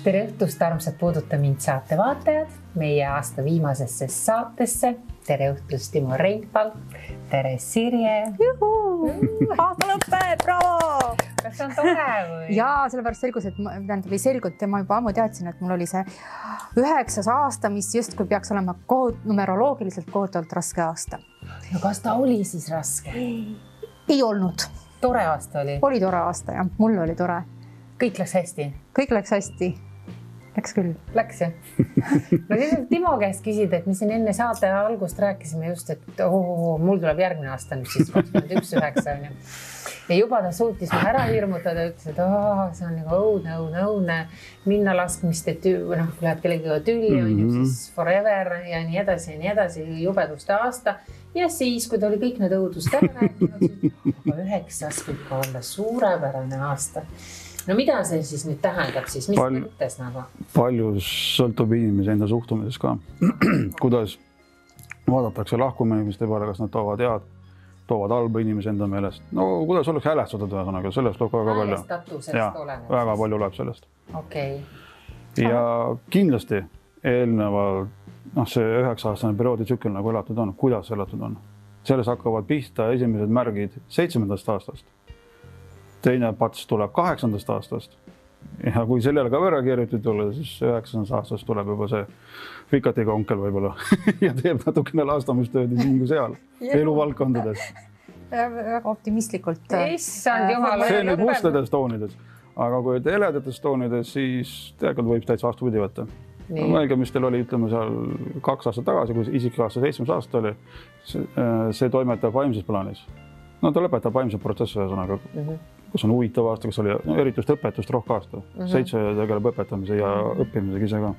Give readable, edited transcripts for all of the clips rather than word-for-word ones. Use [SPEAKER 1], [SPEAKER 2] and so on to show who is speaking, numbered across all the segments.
[SPEAKER 1] Tere õhtust, armsad Puuduta mind saate vaatajad, meie aasta viimasesse saatesse. Tere õhtust, Timo Reinpal. Tere Sirje.
[SPEAKER 2] Aasta lõppe, bravo!
[SPEAKER 1] Kas on tore või?
[SPEAKER 2] Jaa, sellepärast selgus, et ma juba ammu teadsin, et mul oli see 9. aasta, mis justkui peaks olema numeroloogiliselt kohutavalt raske aasta.
[SPEAKER 1] No kas ta oli siis raske?
[SPEAKER 2] Ei olnud.
[SPEAKER 1] Tore aasta oli?
[SPEAKER 2] Oli tore aasta, jah. Mul oli tore.
[SPEAKER 1] Kõik läks hästi?
[SPEAKER 2] Kõik läks hästi. Läks küll.
[SPEAKER 1] Läks, jah? No siis Timo käest küsida, et me siin enne saate algust rääkisime just, et mul tuleb järgmine aasta nüüd siis 21.9. Ja juba ta suutis ära hirmutada, ütles, et see on nagu õudne minna laskmist, et läheb kellegiga tülli, siis forever ja nii edasi, jubeduste aasta. Ja siis, kui ta oli kõik need õudust ära rääkinud, 9. võib olla suurepärane aasta. No mida see siis nüüd tähendab siis? Mis mõttes nagu?
[SPEAKER 3] Palju sõltub inimese enda suhtumises ka. Kuidas vaadatakse lahkuma inimeste peale, kas nad toovad head, toovad halba inimese enda meelest. No kuidas oleks häälestatud ühesõnaga, sellest tuleb väga palju.
[SPEAKER 1] Häälestatusest oleneb.
[SPEAKER 3] Väga palju loeb sellest.
[SPEAKER 1] Okei.
[SPEAKER 3] Ja kindlasti eelnevalt, see 9-aastane perioodi tsükkel nagu elatud on, kuidas elatud on. Selles hakkavad pihta esimesed märgid 7. aastast. Teine pats tuleb 8. aastast. Ja kui sellele ka võrra keeritud olla, siis 9. aastast tuleb juba see fikatiga onkel võib-olla ja teeb natukene laastamistööd siin kui seal eluvaldkondades.
[SPEAKER 2] Väga optimistlikult.
[SPEAKER 1] Issand jumal.
[SPEAKER 3] See nüüd mustades toonides. Aga kui heledates toonides, siis tegelikult võib täitsa vastupidi võtta. Mõelge, mis teil oli, ütleme seal 2 aastat tagasi, kui isik aasta 7. aasta oli, see toimetab vaimses plaanis. No ta lõpetab vaimse protsessi ühesõnaga, kus on huvitav aasta, kus oli eritust õpetust rohke aasta. 7 tegeleb õpetamise ja õppimisega ise ka.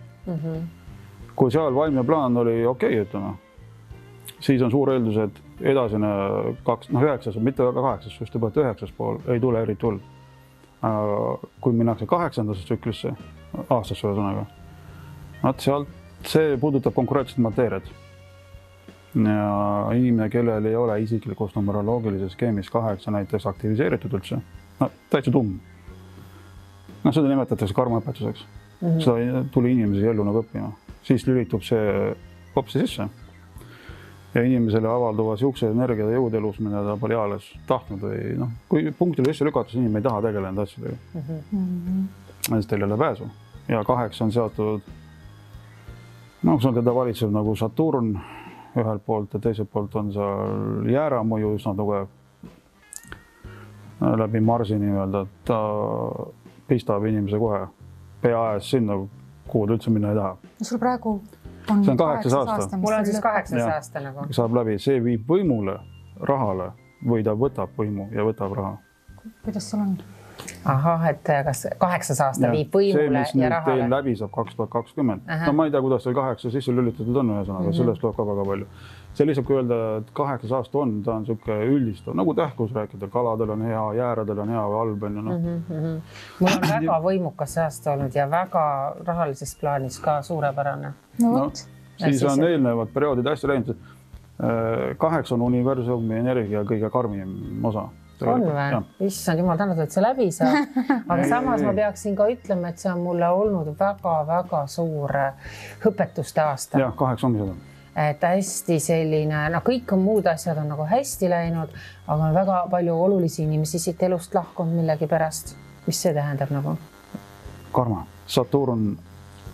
[SPEAKER 3] Kui seal vaimne plaan oli okei, ütleme, siis on suur eeldus, et edasine 9, mitte väga 8, just juba 9 pool ei tule eriti hull. Kui minnakse 8. tsüklisse, aastasse ühesõnaga, sealt see puudutab konkreetset mateeriat. Ja inimene, kellel ei ole isiklikust numeroloogilises skeemis 8 näiteks aktiviseeritud üldse, täitsa tumm. Seda nimetatakse karmaõpetuseks. Seda tuli inimese ellu nagu õppima. Siis lülitub see kopsi sisse. Ja inimesele avalduva siukse energia ja jõud elus, mida ta pole eales tahtnud või kui punktile sisse lükatus, inimene ei taha tegelenud asjadega. Siis teil ei ole pääsu. Ja 8 on seotud, see on teda valitsev nagu Saturn ühelt poolt ja teiselt poolt on seal jääramõju üsna tugev läbi Marsi nii-öelda, et ta pistab inimese kohe pea aes sinna, kuhu ta üldse minna ei taha.
[SPEAKER 2] Sul praegu
[SPEAKER 3] on 8 aasta.
[SPEAKER 1] Mul on siis 8 aasta nagu.
[SPEAKER 3] Saab läbi, see viib võimule, rahale või ta võtab võimu ja võtab raha.
[SPEAKER 2] Kuidas sul on?
[SPEAKER 1] Ahah, et kas 8 aasta viib võimule ja rahale?
[SPEAKER 3] See, mis teil läbi saab 2020. Ma ei tea, kuidas teil 8 sisse lülitatud on ühesõnaga, sellest tuleb ka väga palju. See lihtsalt, kui öelda, et 8 aasta on, ta on siuke üldistav, nagu tähkus rääkida, kaladel on hea, jääradel on hea või halb.
[SPEAKER 1] Mul on väga võimukas aasta olnud ja väga rahalises plaanis ka suurepärane.
[SPEAKER 3] Siis on eelnevad perioodid hästi läinud. 8 on universumi energia kõige karmim osa.
[SPEAKER 1] On või? Issand jumal tänatud, et see läbi saab. Aga samas ma peaksin ka ütlema, et see on mulle olnud väga-väga suur õpetuste aasta.
[SPEAKER 3] Jah, 8 ongi seda.
[SPEAKER 1] Et hästi selline, kõik muud asjad on nagu hästi läinud, aga on väga palju olulisi inimesi siit elust lahkunud millegi pärast. Mis see tähendab nagu?
[SPEAKER 3] Karma. Saturn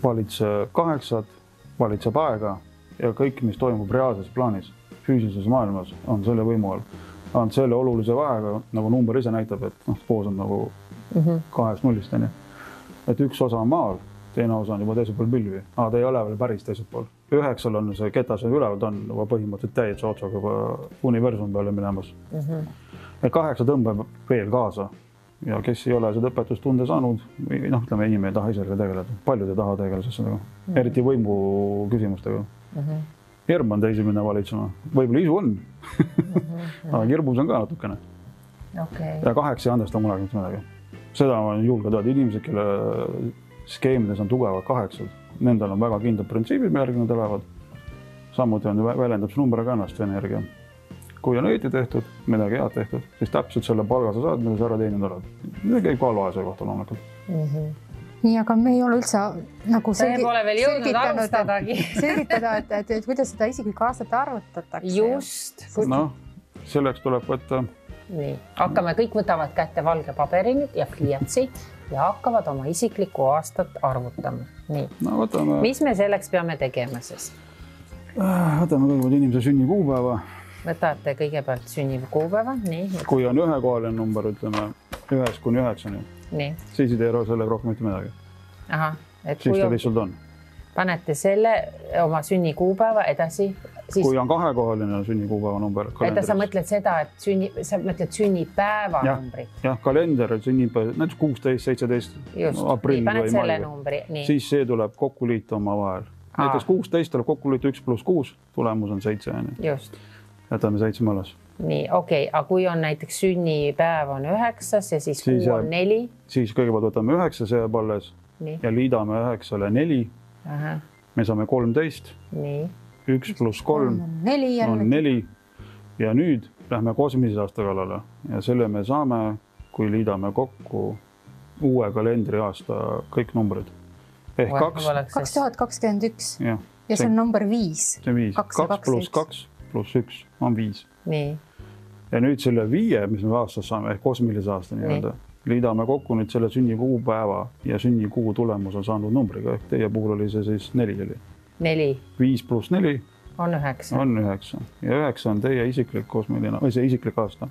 [SPEAKER 3] valitseb 8, valitseb aega ja kõik, mis toimub reaalses plaanis, füüsilises maailmas, on selle võimu all. On selle olulise vahega, nagu number ise näitab, et koos on nagu 2-0. Et üks osa on maal, teine osa on juba teisel pool pilvi. Ta ei ole veel päris teisel pool. 9 on see ketas üleval, ta on juba põhimõtteliselt täietse otsaga juba universum peale minemas. 8 tõmbab veel kaasa ja kes ei ole seda õpetustunde saanud, ütleme, inimene ei taha ise tegeleda. Paljud ei taha tegeleda sellega, eriti võimu küsimustega. Hirm on teisi minna valitsema. Võib-olla isu on, aga hirmus on ka natukene. Ja 8 ei andesta mulle midagi. Seda on julge teada. Inimesed, kelle skeemides on tugevad 8, nendel on väga kindlad printsiibid, mille järgi nad elavad. Samuti väljendab see number ka ennast energia. Kui on õieti tehtud, midagi head tehtud, siis täpselt selle palga sa saad, mida sa ära teeninud oled. See käib ka halva asja kohta loomulikult.
[SPEAKER 2] nii, aga me ei ole üldse nagu
[SPEAKER 1] pole veel jõudnud alustadagi.
[SPEAKER 2] selgitada, et kuidas seda isiklikku aastat arvutatakse.
[SPEAKER 1] Just.
[SPEAKER 3] Noh, selleks tuleb võtta.
[SPEAKER 1] Nii, hakkame, kõik võtavad kätte valge paberi nüüd ja pliiatsi ja hakkavad oma isiklikku aastat arvutama. Nii,
[SPEAKER 3] no, võtame...
[SPEAKER 1] mis me selleks peame tegema siis?
[SPEAKER 3] Võtame kõigepealt inimese sünnikuupäeva.
[SPEAKER 1] Võtate kõigepealt sünnikuupäeva, nii.
[SPEAKER 3] Kui on ühekohaline number, ütleme 1-9,
[SPEAKER 1] nii.
[SPEAKER 3] Siis ei tee sellega rohkem mitte midagi.
[SPEAKER 1] Aha,
[SPEAKER 3] et siis ta lihtsalt on.
[SPEAKER 1] Panete selle oma sünnikuupäeva edasi. Siis...
[SPEAKER 3] Kui on kahekohaline sünnikuupäeva number.
[SPEAKER 1] Sa mõtled seda, et sa mõtled sünnipäeva numbri.
[SPEAKER 3] Jah, kalender sünnipäev, näiteks 16, 17 aprill või mai. Siis see tuleb kokku liita oma vahel. Näiteks 16 tuleb kokku liita 1 + 6, tulemus on 7.
[SPEAKER 1] Just.
[SPEAKER 3] Jätame 7 alles.
[SPEAKER 1] Nii, okei. Aga kui on näiteks sünnipäev on 9 ja siis kuu on 4.
[SPEAKER 3] Siis kõigepealt võtame 9, see jääb alles.
[SPEAKER 1] Nii.
[SPEAKER 3] Ja liidame 9-le 4.
[SPEAKER 1] Aha.
[SPEAKER 3] Me saame 13.
[SPEAKER 1] Nii.
[SPEAKER 3] 1 + 3 on 4 ja nüüd lähme kosmilise aasta kallale ja selle me saame, kui liidame kokku uue kalendriaasta kõik numbrid. Ehk
[SPEAKER 2] 2021 ja see on number 5.
[SPEAKER 3] See on 5. 2 + 2 + 1 on 5.
[SPEAKER 1] Nii.
[SPEAKER 3] Ja nüüd selle 5, mis me aastas saame, ehk kosmilise aasta nii-öelda, liidame kokku nüüd selle sünnikuupäeva ja sünnikuu tulemus on saanud numbriga, ehk teie puhul oli see siis 4.
[SPEAKER 1] 4.
[SPEAKER 3] 5 + 4
[SPEAKER 1] on 9.
[SPEAKER 3] On 9. Ja 9 on teie isiklik kosmiline, või see isiklik aasta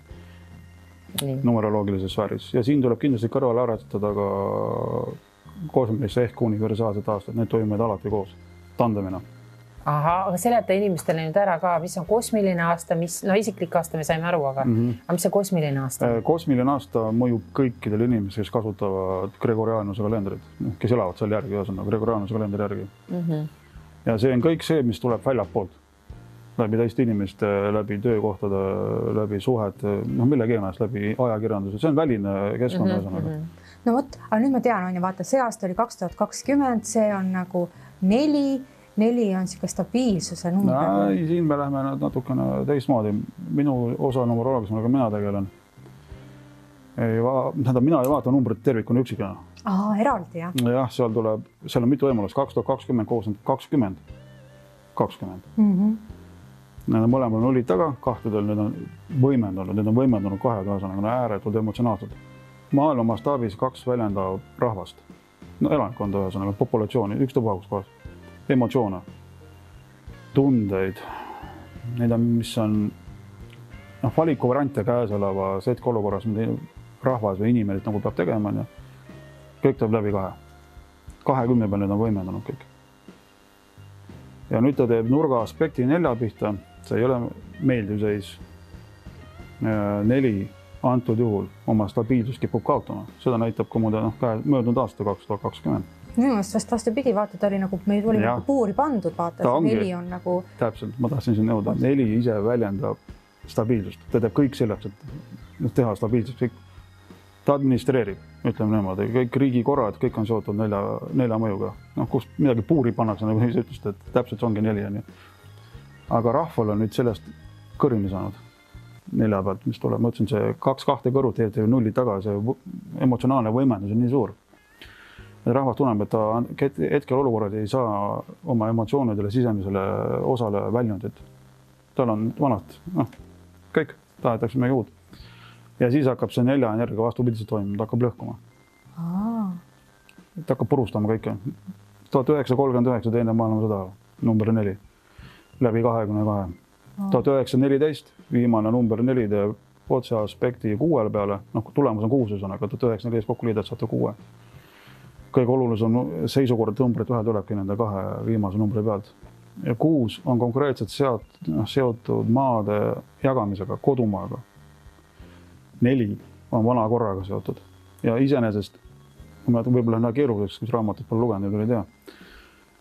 [SPEAKER 3] numeroloogilises sfääris. Ja siin tuleb kindlasti kõrvale arvatada ka kosmilisse ehk universaalset aastat. Need toimuvad alati koos, tandemina.
[SPEAKER 1] Aha, aga seleta inimestele nüüd ära ka, mis on kosmiline aasta, isiklik aasta me saime aru, aga mis see kosmiline aasta?
[SPEAKER 3] Kosmiline aasta mõjub kõikidele inimesele, kes kasutavad Gregorianuse kalendrit, kes elavad seal järgi, Gregorianuse kalendri järgi. Ja see on kõik see, mis tuleb väljapoolt. Läbi teiste inimeste, läbi töökohtade, läbi suhet, millegi ennast, läbi ajakirjanduse. See on väline keskkond.
[SPEAKER 2] No vot, aga nüüd ma tean, vaata, see aasta oli 2020, see on nagu 4 on siuke stabiilsuse number.
[SPEAKER 3] Siin me lähme natukene teistmoodi. Minu osa numeroloogias, millega mina tegelen. Mina ei vaata numbrit tervikuna üksikena.
[SPEAKER 2] Eraldi, jah?
[SPEAKER 3] Jah, seal on mitu võimalust. 2020 koos on 20. Need on mõlemal nullid taga, kahtedel need on võimendunud kahega, ääretult emotsionaalsed. Maailma mastaabis 2 väljendab rahvast. Elanikkonda ühesõnaga, populatsiooni, ükstapuha kohas. Emotsioone, tundeid, mis on valikuvariante käesoleva setke olukorras, mida rahvas või inimene nagu peab tegema. Kõik tuleb läbi 2. 20 peal need on võimendunud kõik. Ja nüüd ta teeb nurga aspekti 4 pihta. See ei ole meeldiv seis. 4 antud juhul oma stabiilsus kipub kaotama. Seda näitab ka möödunud aasta 2020.
[SPEAKER 2] Minu mõttes vastupidi, vaata, ta oli nagu, meil oli nagu puuri pandud, vaata, see 4 on nagu...
[SPEAKER 3] Täpselt, ma tahtsin siin nõuda. 4 ise väljendab stabiilsust. Ta teeb kõik selleks, et teha stabiilsust. Ta administreerib, ütleme niimoodi. Kõik riigikorrad, kõik on seotud 4 mõjuga. Kus midagi puuri pannakse, nagu ise ütlesite, et täpselt see ongi 4. Aga rahval on nüüd sellest kõrini saanud 4 pealt, mis tuleb. Ma ütlesin, see 2 kõrvut teeb 0 taga, see emotsionaalne võimendus on nii suur. Rahvas tunneb, et ta hetkel olukorrad ei saa oma emotsioonidele sisemisele osale väljundit. Tal on vanad, kõik, tahetakse midagi uut. Ja siis hakkab see 4 energia vastupidiselt toimima, ta hakkab lõhkuma. Ta hakkab purustama kõike. 1939 teine maailmasõda, number 4, läbi 22. 1914, viimane number 4 teeb otse aspekti 6 peale, tulemus on 6 sõnaga, 1914 kokku liidad saate 6. Kõige olulisem seisukord numbrit ühe tulebki nende 2 viimase numbri pealt. Ja 6 on konkreetselt seotud maade jagamisega, kodumaaga. 4 on vana korraga seotud. Ja iseenesest, võib-olla on keeruliseks, kus raamatut pole lugenud, ei tea.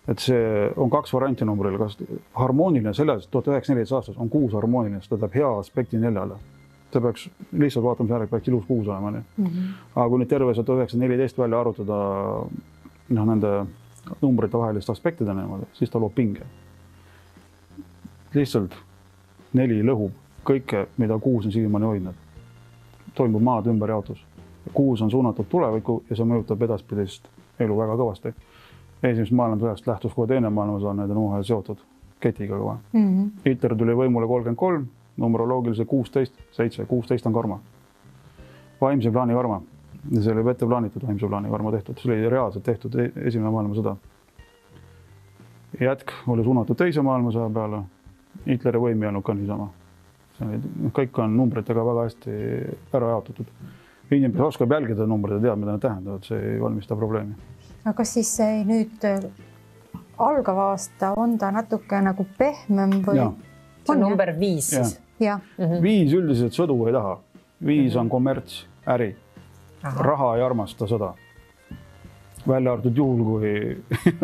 [SPEAKER 3] Et see on 2 varianti numbril. Kas harmooniline selles 1914 aastas on 6 harmooniline, ta teeb hea aspekti 4-le. Ta peaks lihtsalt vaatama järgi, peaks ilus 6 olema. Aga kui nüüd terve 1914 välja arutada nende numbrite vahelist aspektide niimoodi, siis ta loob pinge. Lihtsalt 4 lõhub kõike, mida 6 on siiamaani hoidnud. Toimub maad ümberjaotus. 6 on suunatud tulevikku ja see mõjutab edaspidist elu väga kõvasti. Esimesest maailmasõjast lähtus kohe teine maailmasõda, need on omavahel seotud ketiga kõva. Hitler tuli võimule 33, numeroloogilise 16, 7, 16 on karma. Vaimse plaani karma. Ja see oli ette plaanitud vaimse plaani karma tehtud. See oli reaalselt tehtud esimene maailmasõda. Jätk oli suunatud teise maailmasõja peale. Hitleri võim ei olnud ka niisama. Kõik on numbritega väga hästi ära jaotatud. Inimene oskab jälgida numbreid ja teab, mida nad tähendavad. See ei valmista probleemi.
[SPEAKER 2] Aga kas siis nüüd algav aasta on ta natuke nagu pehmem või?
[SPEAKER 1] See on number 5 siis?
[SPEAKER 2] Ja.
[SPEAKER 3] 5 üldiselt sõdu ei taha. 5 on kommerts, äri. Raha ei armasta sõda. Välja arvatud juhul, kui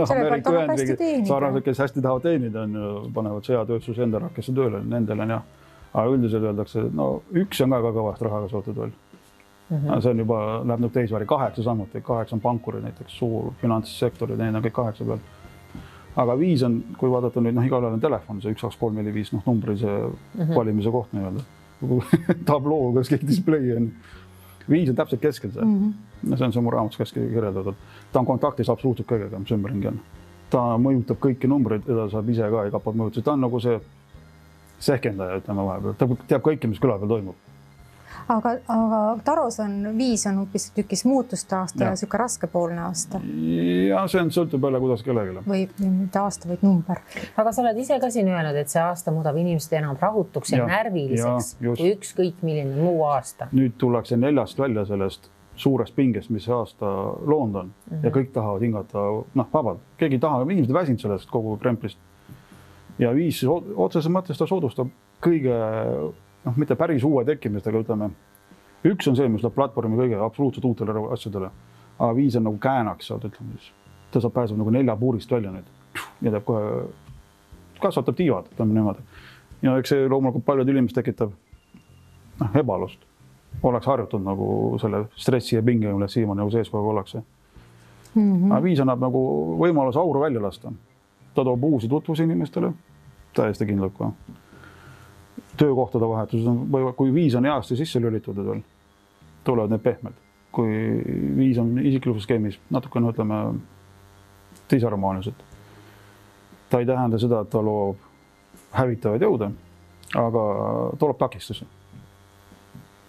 [SPEAKER 3] Ameerika Ühendriigid sarnased, kes hästi tahavad teenida, panevad sõjatööstus enda rakkesse tööle, nendel on jah. Aga üldiselt öeldakse, no 1 on ka kõvast rahaga sootud veel. See on juba, läheb nüüd teisväri, 8 samuti, 8 on pankurid, näiteks suur finantssektorid, need on kõik 8 peal. Aga 5 on, kui vaadata nüüd, igal ajal on telefon, see 1, 2, 3, 4, 5, numbrise valimise koht nii-öelda. Tabloo, kas kõik display on. 5 on täpselt keskel see. See on see mu raamatus käski kirjeldatud. Ta on kontaktis absoluutselt kõigega, mis ümberringi on. Ta mõjutab kõiki numbreid, teda saab ise ka ei kapad mõjutada. Ta on nagu see sehkendaja, ütleme vahepeal. Ta teab kõike, mis küla peal toimub.
[SPEAKER 2] Aga Taros on 5 on hoopis tükis muutuste aasta ja siuke raskepoolne aasta.
[SPEAKER 3] Ja see on sõltub jälle, kuidas kellegile.
[SPEAKER 2] Või mitte aasta, vaid number.
[SPEAKER 1] Aga sa oled ise ka siin öelnud, et see aasta muudab inimesed enam rahutuks ja närviliseks kui ükskõik milline muu aasta. Nüüd
[SPEAKER 3] tullakse 4 välja sellest suurest pingest, mis see aasta loond on ja kõik tahavad hingata vabalt. Keegi ei taha, inimesed väsinud sellest kogu kremplist. Ja 5 otseses mõttes ta soodustab kõige mitte päris uue tekkimist, aga ütleme, 1 on see, mis läheb platvormi kõige absoluutselt uutele asjadele, aga 5 on nagu käänaks sealt, ütleme siis. Ta saab pääseb nagu 4 puurist välja nüüd ja teeb kohe, kasvatab tiivad, ütleme niimoodi. Ja eks see loomulikult paljud inimesed tekitab ebalust. Oleks harjutud nagu selle stressi ja pinge, mille siiamaani nagu sees kogu ollakse. Aga 5 annab nagu võimalus auru välja lasta. Ta toob uusi tutvusi inimestele, täiesti kindlalt ka. Töökohtade vahetus on, kui 5 on heasti sisse lülitutud veel, tulevad need pehmed. Kui 5 on isiklikus skeemis, natukene ütleme disharmoonilised. Ta ei tähenda seda, et ta loob hävitavaid jõude, aga tuleb takistusi.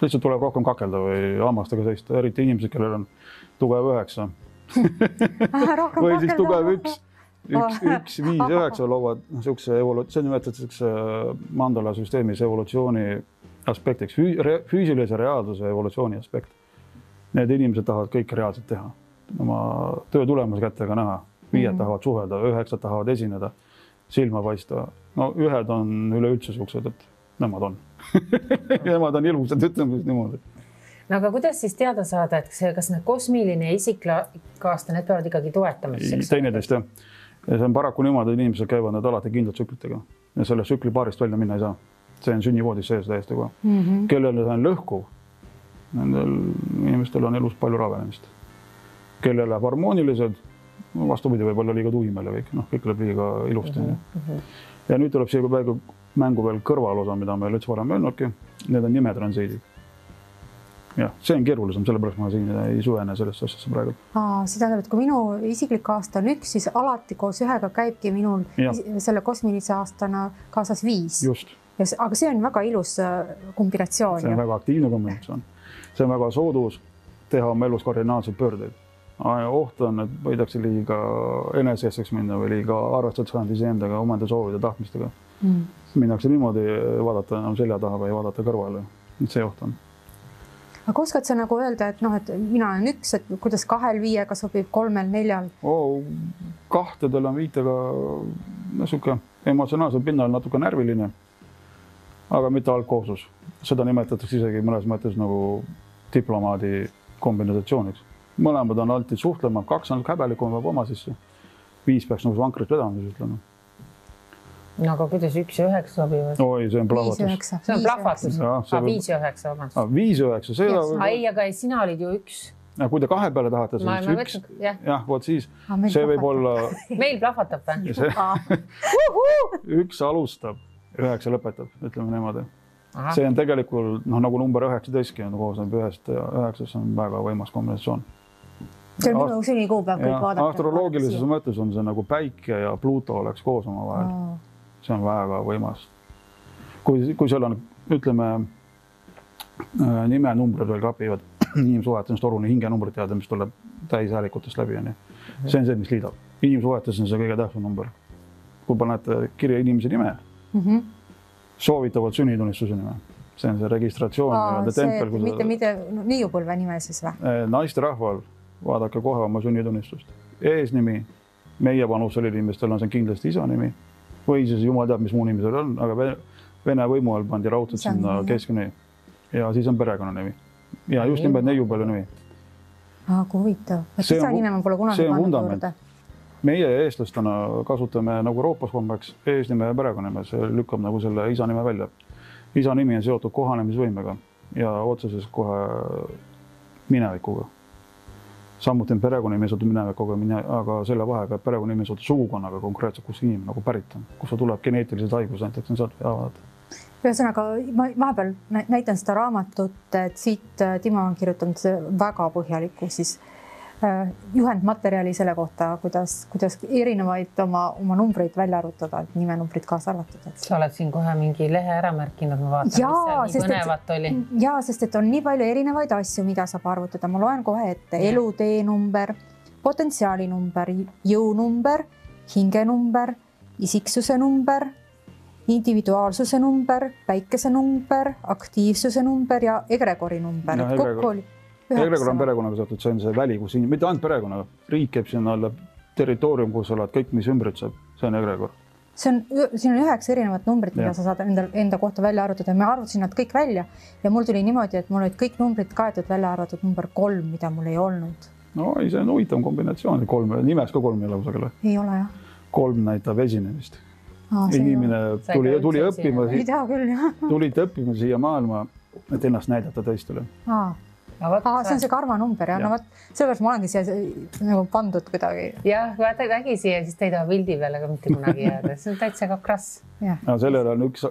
[SPEAKER 3] Lihtsalt tuleb rohkem kakelda või hammastega seista, eriti inimesed, kellel on tugev 9. Või siis tugev 1. 1, 5, 9 loovad see nimetatakse mandala süsteemis evolutsiooni aspektiks, füüsilise reaalsuse evolutsiooni aspekt. Need inimesed tahavad kõike reaalselt teha. Oma töö tulemus kättega näha. 5 tahavad suhelda, 9 tahavad esineda, silma paista. No 1 on üleüldse suksed, et nemad on. Nemad on ilusad, ütleme niimoodi.
[SPEAKER 1] No aga kuidas siis teada saada, et kas need kosmiline ja isikkaasta, need peavad ikkagi toetama?
[SPEAKER 3] Teineteist jah. Ja see on paraku niimoodi, et inimesed käivad need alati kindlalt tsüklitega ja selle tsükli paarist välja minna ei saa. See on sünnivoodis sees täiesti kohe. Kellele see on lõhkuv, nendel inimestel on elus palju ravenemist. Kellele läheb harmoonilised, vastupidi võib-olla liiga tuimel ja kõik läheb liiga ilusti. Ja nüüd tuleb siia mängu veel kõrvalosa, mida me üldse varem öelnudki. Need on nimetransiidid. Jah, see on keerulisem, sellepärast ma siin ei suvene sellest asjasse praegu.
[SPEAKER 2] See tähendab, et kui minu isiklik aasta on 1, siis alati koos 1-ga käibki minul selle kosmilise aastana kaasas 5.
[SPEAKER 3] Just.
[SPEAKER 2] Aga see on väga ilus kombinatsioon.
[SPEAKER 3] See on väga aktiivne kombinatsioon. See on väga soodus teha oma elus kardinaalseid pöördeid. Oht on, et võidakse liiga eneseeseks minna või liiga arvestada saanud iseendaga, omanda soovide tahtmistega. Minnakse niimoodi vaadata enam selja taha või vaadata kõrvale. See oht on.
[SPEAKER 2] Aga oskad sa nagu öelda, et mina olen 1, et kuidas 2, 5-ga sobib 3, 4?
[SPEAKER 3] 2-del on 5-ga niisugune emotsionaalselt pinnal natuke närviline, aga mitte algkoosus. Seda nimetatakse isegi mõnes mõttes nagu diplomaadi kombinatsiooniks. Mõlemad on alati suhtlema, 2 on häbelikum või oma sisse. 5 peaks nagu vankrit vedama, siis ütleme.
[SPEAKER 1] No aga kuidas 1 ja 9 sobivad?
[SPEAKER 3] Oi, see on plahvatus.
[SPEAKER 1] See on plahvatus. 5 ja 9, vabandust.
[SPEAKER 3] 5 ja 9, see on...
[SPEAKER 1] Ei, aga sina olid ju 1.
[SPEAKER 3] Kui te 2 peale tahate, siis 1. Jah, voot siis. See võib olla...
[SPEAKER 1] Meil plahvatab või?
[SPEAKER 3] 1 alustab, 9 lõpetab, ütleme niimoodi. See on tegelikult, nagu number 19 on koosneb 1 ja 9, see on väga võimas kombinatsioon.
[SPEAKER 2] See on sünnikuupäev, kõik vaadata.
[SPEAKER 3] Astroloogilises mõttes on see nagu Päike ja Pluto oleks koos oma vahel. See on väga võimas. Kui seal on, ütleme, nimenumbrid veel klapivad, inimsuhetes on torune hingenumbrid teada, mis tuleb täishäälikutest läbi. See on see, mis liidab. Inimsuhetes on see kõige tähtsam number. Kui panete kirja inimese nime, soovitavad sünnitunnistuse nime. See on see registratsioon.
[SPEAKER 2] Mitte niiupõlve nime siis või?
[SPEAKER 3] Naiste rahval vaadake kohe oma sünnitunnistust. Eesnimi, meie vanusel inimestel on see kindlasti isa nimi või siis jumal teab, mis muu nimi seal on, aga Vene võimu all pandi raudselt sinna keskne ja siis on perekonnanimi. Ja just nimelt neiupõlve nimi.
[SPEAKER 2] Kui huvitav. Isa nime ma pole kunagi pannud juurde.
[SPEAKER 3] Meie eestlastena kasutame nagu Euroopas kombeks eesnime ja perekonnanime, see lükkab nagu selle isa nime välja. Isa nimi on seotud kohanemisvõimega ja otseses kohe minevikuga. Samuti on perekonnanimi seotud minevikuga, aga selle vahega perekonnanimi seotud sugukonnaga konkreetselt, kus inimene nagu pärit on, kus ta tuleb geneetilised haigus, näiteks on sealt vaadata.
[SPEAKER 2] Ühesõnaga, ma vahepeal näitan seda raamatut, et siit Timo on kirjutanud väga põhjalikku siis juhendmaterjali selle kohta, kuidas erinevaid oma numbreid välja arvutada, et nimenumbrid kaasa arvatud.
[SPEAKER 1] Sa oled siin kohe mingi lehe ära märkinud, ma vaatan, mis seal nii põnevat oli.
[SPEAKER 2] Jaa, sest et on nii palju erinevaid asju, mida saab arvutada. Ma loen kohe ette eluteenumber, potentsiaalinumber, jõunumber, hingenumber, isiksuse number, individuaalsuse number, päikese number, aktiivsuse number ja egregori number. Kokku oli Egregor on perekonnaga seotud, see on see väli, kus mitte ainult perekonnaga, riik käib sinna alla territoorium, kus oled kõik, mis ümbritseb, see on egregor. Siin on 9 erinevat numbrit, mida sa saad enda kohta välja arvutada. Ma arvutasin nad kõik välja ja mul tuli niimoodi, et mul olid kõik numbrid kaetud välja arvatud number 3, mida mul ei olnud.
[SPEAKER 3] No see on huvitav kombinatsioon, nimes ka 3 ei ole kusagile.
[SPEAKER 2] Ei ole jah.
[SPEAKER 3] 3 näitab esinemist. Inimene tuli õppima, tulite õppima siia maailma, et ennast näidata teistele.
[SPEAKER 2] See on see karmanumber ja no sellepärast ma olengi siia nagu pandud kuidagi.
[SPEAKER 1] Jah, vaata ägi siia, siis te ei taha pildi peale ka mitte kunagi jääda. See on täitsa ka krass.
[SPEAKER 3] Sellel on üks,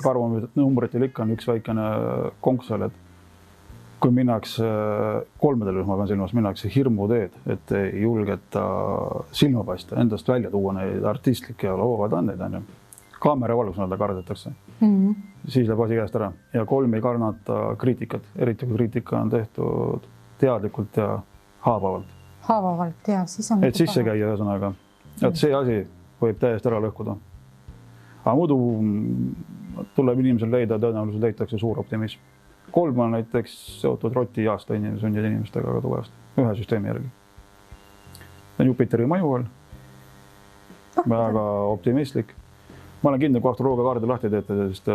[SPEAKER 3] karmanumbritel ikka on üks väikene konksel, et kui minnakse 3 rühma pean silmas, minnakse hirmuteed, et ei julgeta silma paista, endast välja tuua neid artistlikke ja loovad andeid. Kaamera valgus näida kardetakse. Siis läheb asi käest ära. Ja 3 ei karnata kriitikat, eriti kui kriitika on tehtud teadlikult ja haavavalt.
[SPEAKER 2] Haavavalt, jah.
[SPEAKER 3] Et sisse käia ühesõnaga. Et see asi võib täiesti ära lõhkuda. Aga muidu tuleb inimesel leida, tõenäoliselt leitakse suur optimism. 3 on näiteks seotud roti aasta sündide inimestega väga tugevasti, ühe süsteemi järgi. Jupiteri mõju all. Väga optimistlik. Ma olen kindel, kui astroloogia kaardi lahti teete, sest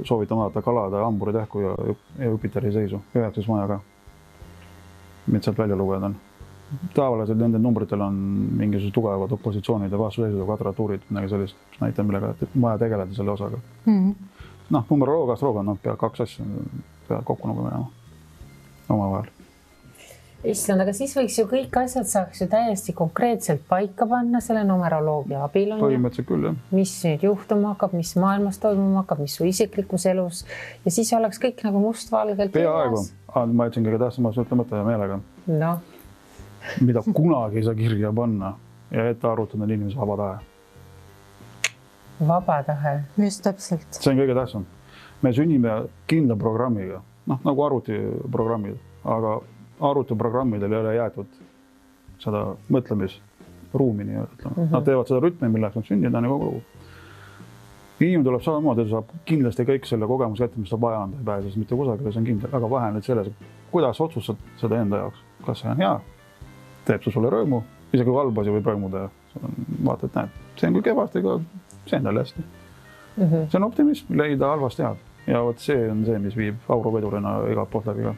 [SPEAKER 3] soovitan vaadata kalade, hamburi tähku ja Jupiteri seisu, 9. majaga. Mida sealt välja lugeda on. Tavaliselt nende numbritel on mingisugused tugevad opositsioonid ja vastuseisud ja kvadratuurid, midagi sellist, mis näitab, millega vaja tegeleda selle osaga. Numeroloogia, astroloogia on pea 2 asja peavad kokku nagu minema oma vahel.
[SPEAKER 1] Issand, aga siis võiks ju kõik asjad saaks ju täiesti konkreetselt paika panna selle numeroloogia abil.
[SPEAKER 3] Põhimõtteliselt küll, jah.
[SPEAKER 1] Mis nüüd juhtuma hakkab, mis maailmas toimuma hakkab, mis su isiklikus elus ja siis oleks kõik nagu mustvalgelt.
[SPEAKER 3] Peaaegu. Ma ütlesin kõige tähtsamas ütlemata ja meelega.
[SPEAKER 1] No.
[SPEAKER 3] Mida kunagi ei saa kirja panna ja ette arvutada inimese vaba tahe.
[SPEAKER 1] Vaba tahe.
[SPEAKER 2] Just täpselt.
[SPEAKER 3] See on kõige tähtsam. Me sünnime kindla programmiga, nagu arvutiprogrammid, aga arvutiprogrammidel ei ole jäetud seda mõtlemisruumi nii-öelda. Nad teevad seda rütmi, milleks nad sünnida nagu kogu. Inimene tuleb samamoodi, saab kindlasti kõik selle kogemus kätte, mis ta vaja on, ta ei pääses mitte kusagile, see on kindel, aga vahe nüüd selles, kuidas otsustad seda enda jaoks. Kas see on hea, teeb see sulle rõõmu, isegi kui halb asi võib rõõmuda ja vaata, et näed, see on kui kevast, ega see on talle hästi. See on optimism, leida halvast head ja vot see on see, mis viib auruvedurina igalt poolt läbi ka.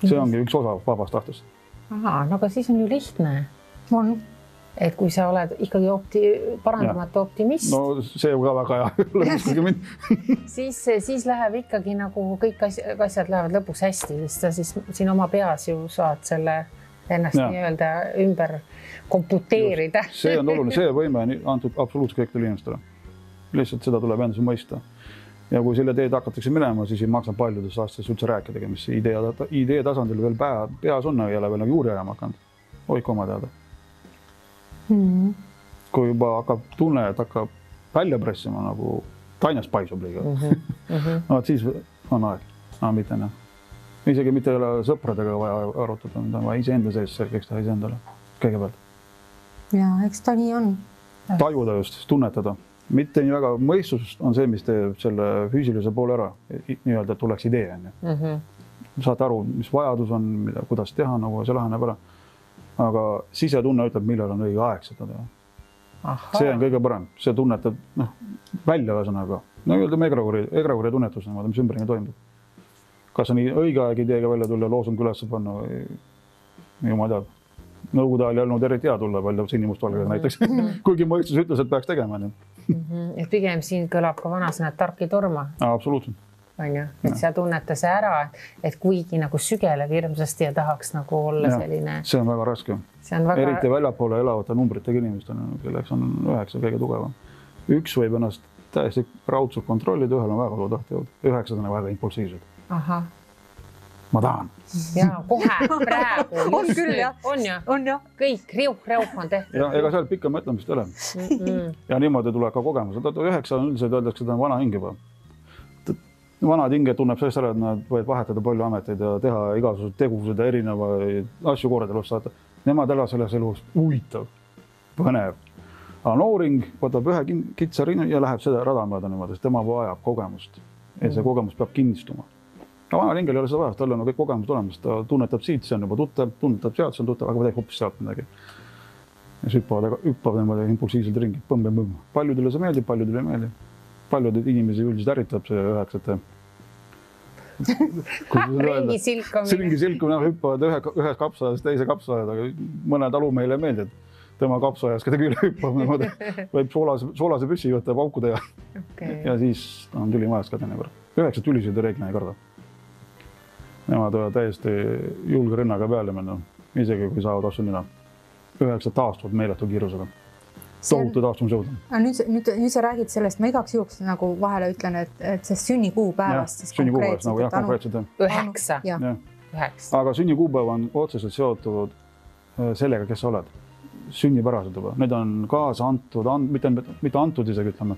[SPEAKER 3] See ongi üks osa vabast tahtest.
[SPEAKER 1] Aha, no aga siis on ju lihtne. Et kui sa oled ikkagi parandamatu optimist.
[SPEAKER 3] No see ka väga hea.
[SPEAKER 1] Siis läheb ikkagi nagu kõik asjad lähevad lõpuks hästi, sest sa siis siin oma peas ju saad selle ennast nii-öelda ümber komputeerida.
[SPEAKER 3] See on oluline, see võime on antud absoluutselt kõikidele inimestele. Lihtsalt seda tuleb endas mõista. ja kui selle teed hakatakse minema, siis ei maksa paljudes aastates üldse rääkidagi, mis idee tasandil veel peas on, ei ole veel nagu juuri ajama hakanud. Hoidku oma teada. Kui juba hakkab tunne, et hakkab välja pressima nagu tainas paisub liiga. No, siis on aeg. Mitte enam. Isegi mitte ei ole sõpradega vaja arutada, mida on vaja iseenda sees selgeks teha iseendale kõigepealt.
[SPEAKER 2] Ja, eks ta nii on.
[SPEAKER 3] Tajuda just, tunnetada. Mitte nii väga mõistus on see, mis teeb selle füüsilise poole ära. Nii-öelda, et tuleks idee. Saate aru, mis vajadus on, kuidas teha, nagu see laheneb ära. Aga sisetunne ütleb, millal on õige aeg seda teha. See on kõige parem. See tunnetab välja ühesõnaga. No öelda egregori tunnetus, mis ümberringi toimub. Kas on õige aeg ideega välja tulla, loosung üles panna või jumal teab. Nõukogude ajal ei olnud eriti hea tulla välja sinimustvalgega näiteks. Kuigi mõistus ütles, et peaks tegema.
[SPEAKER 1] Et pigem siin kõlab ka vanasõna, et tark ei torma.
[SPEAKER 3] Absoluutselt.
[SPEAKER 1] On ju, et sa tunneta see ära, et kuigi nagu sügeleb hirmsasti ja tahaks nagu olla selline...
[SPEAKER 3] See on väga raske. Eriti väljapoole elavate numbritega inimestel, kelleks on 9 kõige tugevam. Üks võib ennast täiesti raudselt kontrollida, ühel on väga suur tahtejõud. 9 on väga impulsiivsed.
[SPEAKER 1] Aha.
[SPEAKER 3] Ma tahan.
[SPEAKER 1] Jaa, kohe, praegu.
[SPEAKER 2] On küll, jah.
[SPEAKER 1] On ju. Kõik riuh on tehtud.
[SPEAKER 3] Ja ega seal pikka mõtlemist ei ole. Ja niimoodi tuleb ka kogemus. 9 on üldiselt öeldakse, et ta on vana hing juba. Vanad hinged tunneb sellest ära, et nad võivad vahetada palju ameteid ja teha igasugused tegused ja erinevaid asju korda elus saata. Nemad elavad selles elus huvitav, põnev. Aga nooring võtab ühe kitsa rinna ja läheb seda rada mööda niimoodi, sest tema vajab kogemust. Ja see kogemus peab kinnistuma. Aga vanal hingel ei ole seda vaja, tal on kõik kogemused olemas. Ta tunnetab siit, see on juba tuttav, tunnetab sealt, see on tuttav, aga teeb hoopis sealt midagi. Ja hüppavad niimoodi impulsiivselt ringi. Põmm. Paljudele see meeldib, paljudele ei meeldi. Paljud inimesi üldiselt ärritab see 9.
[SPEAKER 1] Ringi silkumine.
[SPEAKER 3] Ringi silkumine, hüppavad ühes kapsaajas, teise kapsaajas, aga mõne talu meile ei meeldi, et tema kapsaajas kedagi üle hüppab. Võib soolase püssi võtta pauku teha. Ja siis on tüli majas ka teinekord. 9 tülisid reeglina ei karda. Nemad võivad täiesti julge rinnaga peale minna, isegi kui saavad asju nina. 9 taastuvad meeletu kiirusega. Tohutu taastumisjõud.
[SPEAKER 2] Nüüd sa räägid sellest, ma igaks juhuks nagu vahele ütlen, et see sünnikuupäevast siis
[SPEAKER 3] konkreetselt.
[SPEAKER 1] 9.
[SPEAKER 3] Aga sünnikuupäev on otseselt seotud sellega, kes sa oled. Sünnipärased juba. Need on kaasa antud, mitte antud isegi ütleme,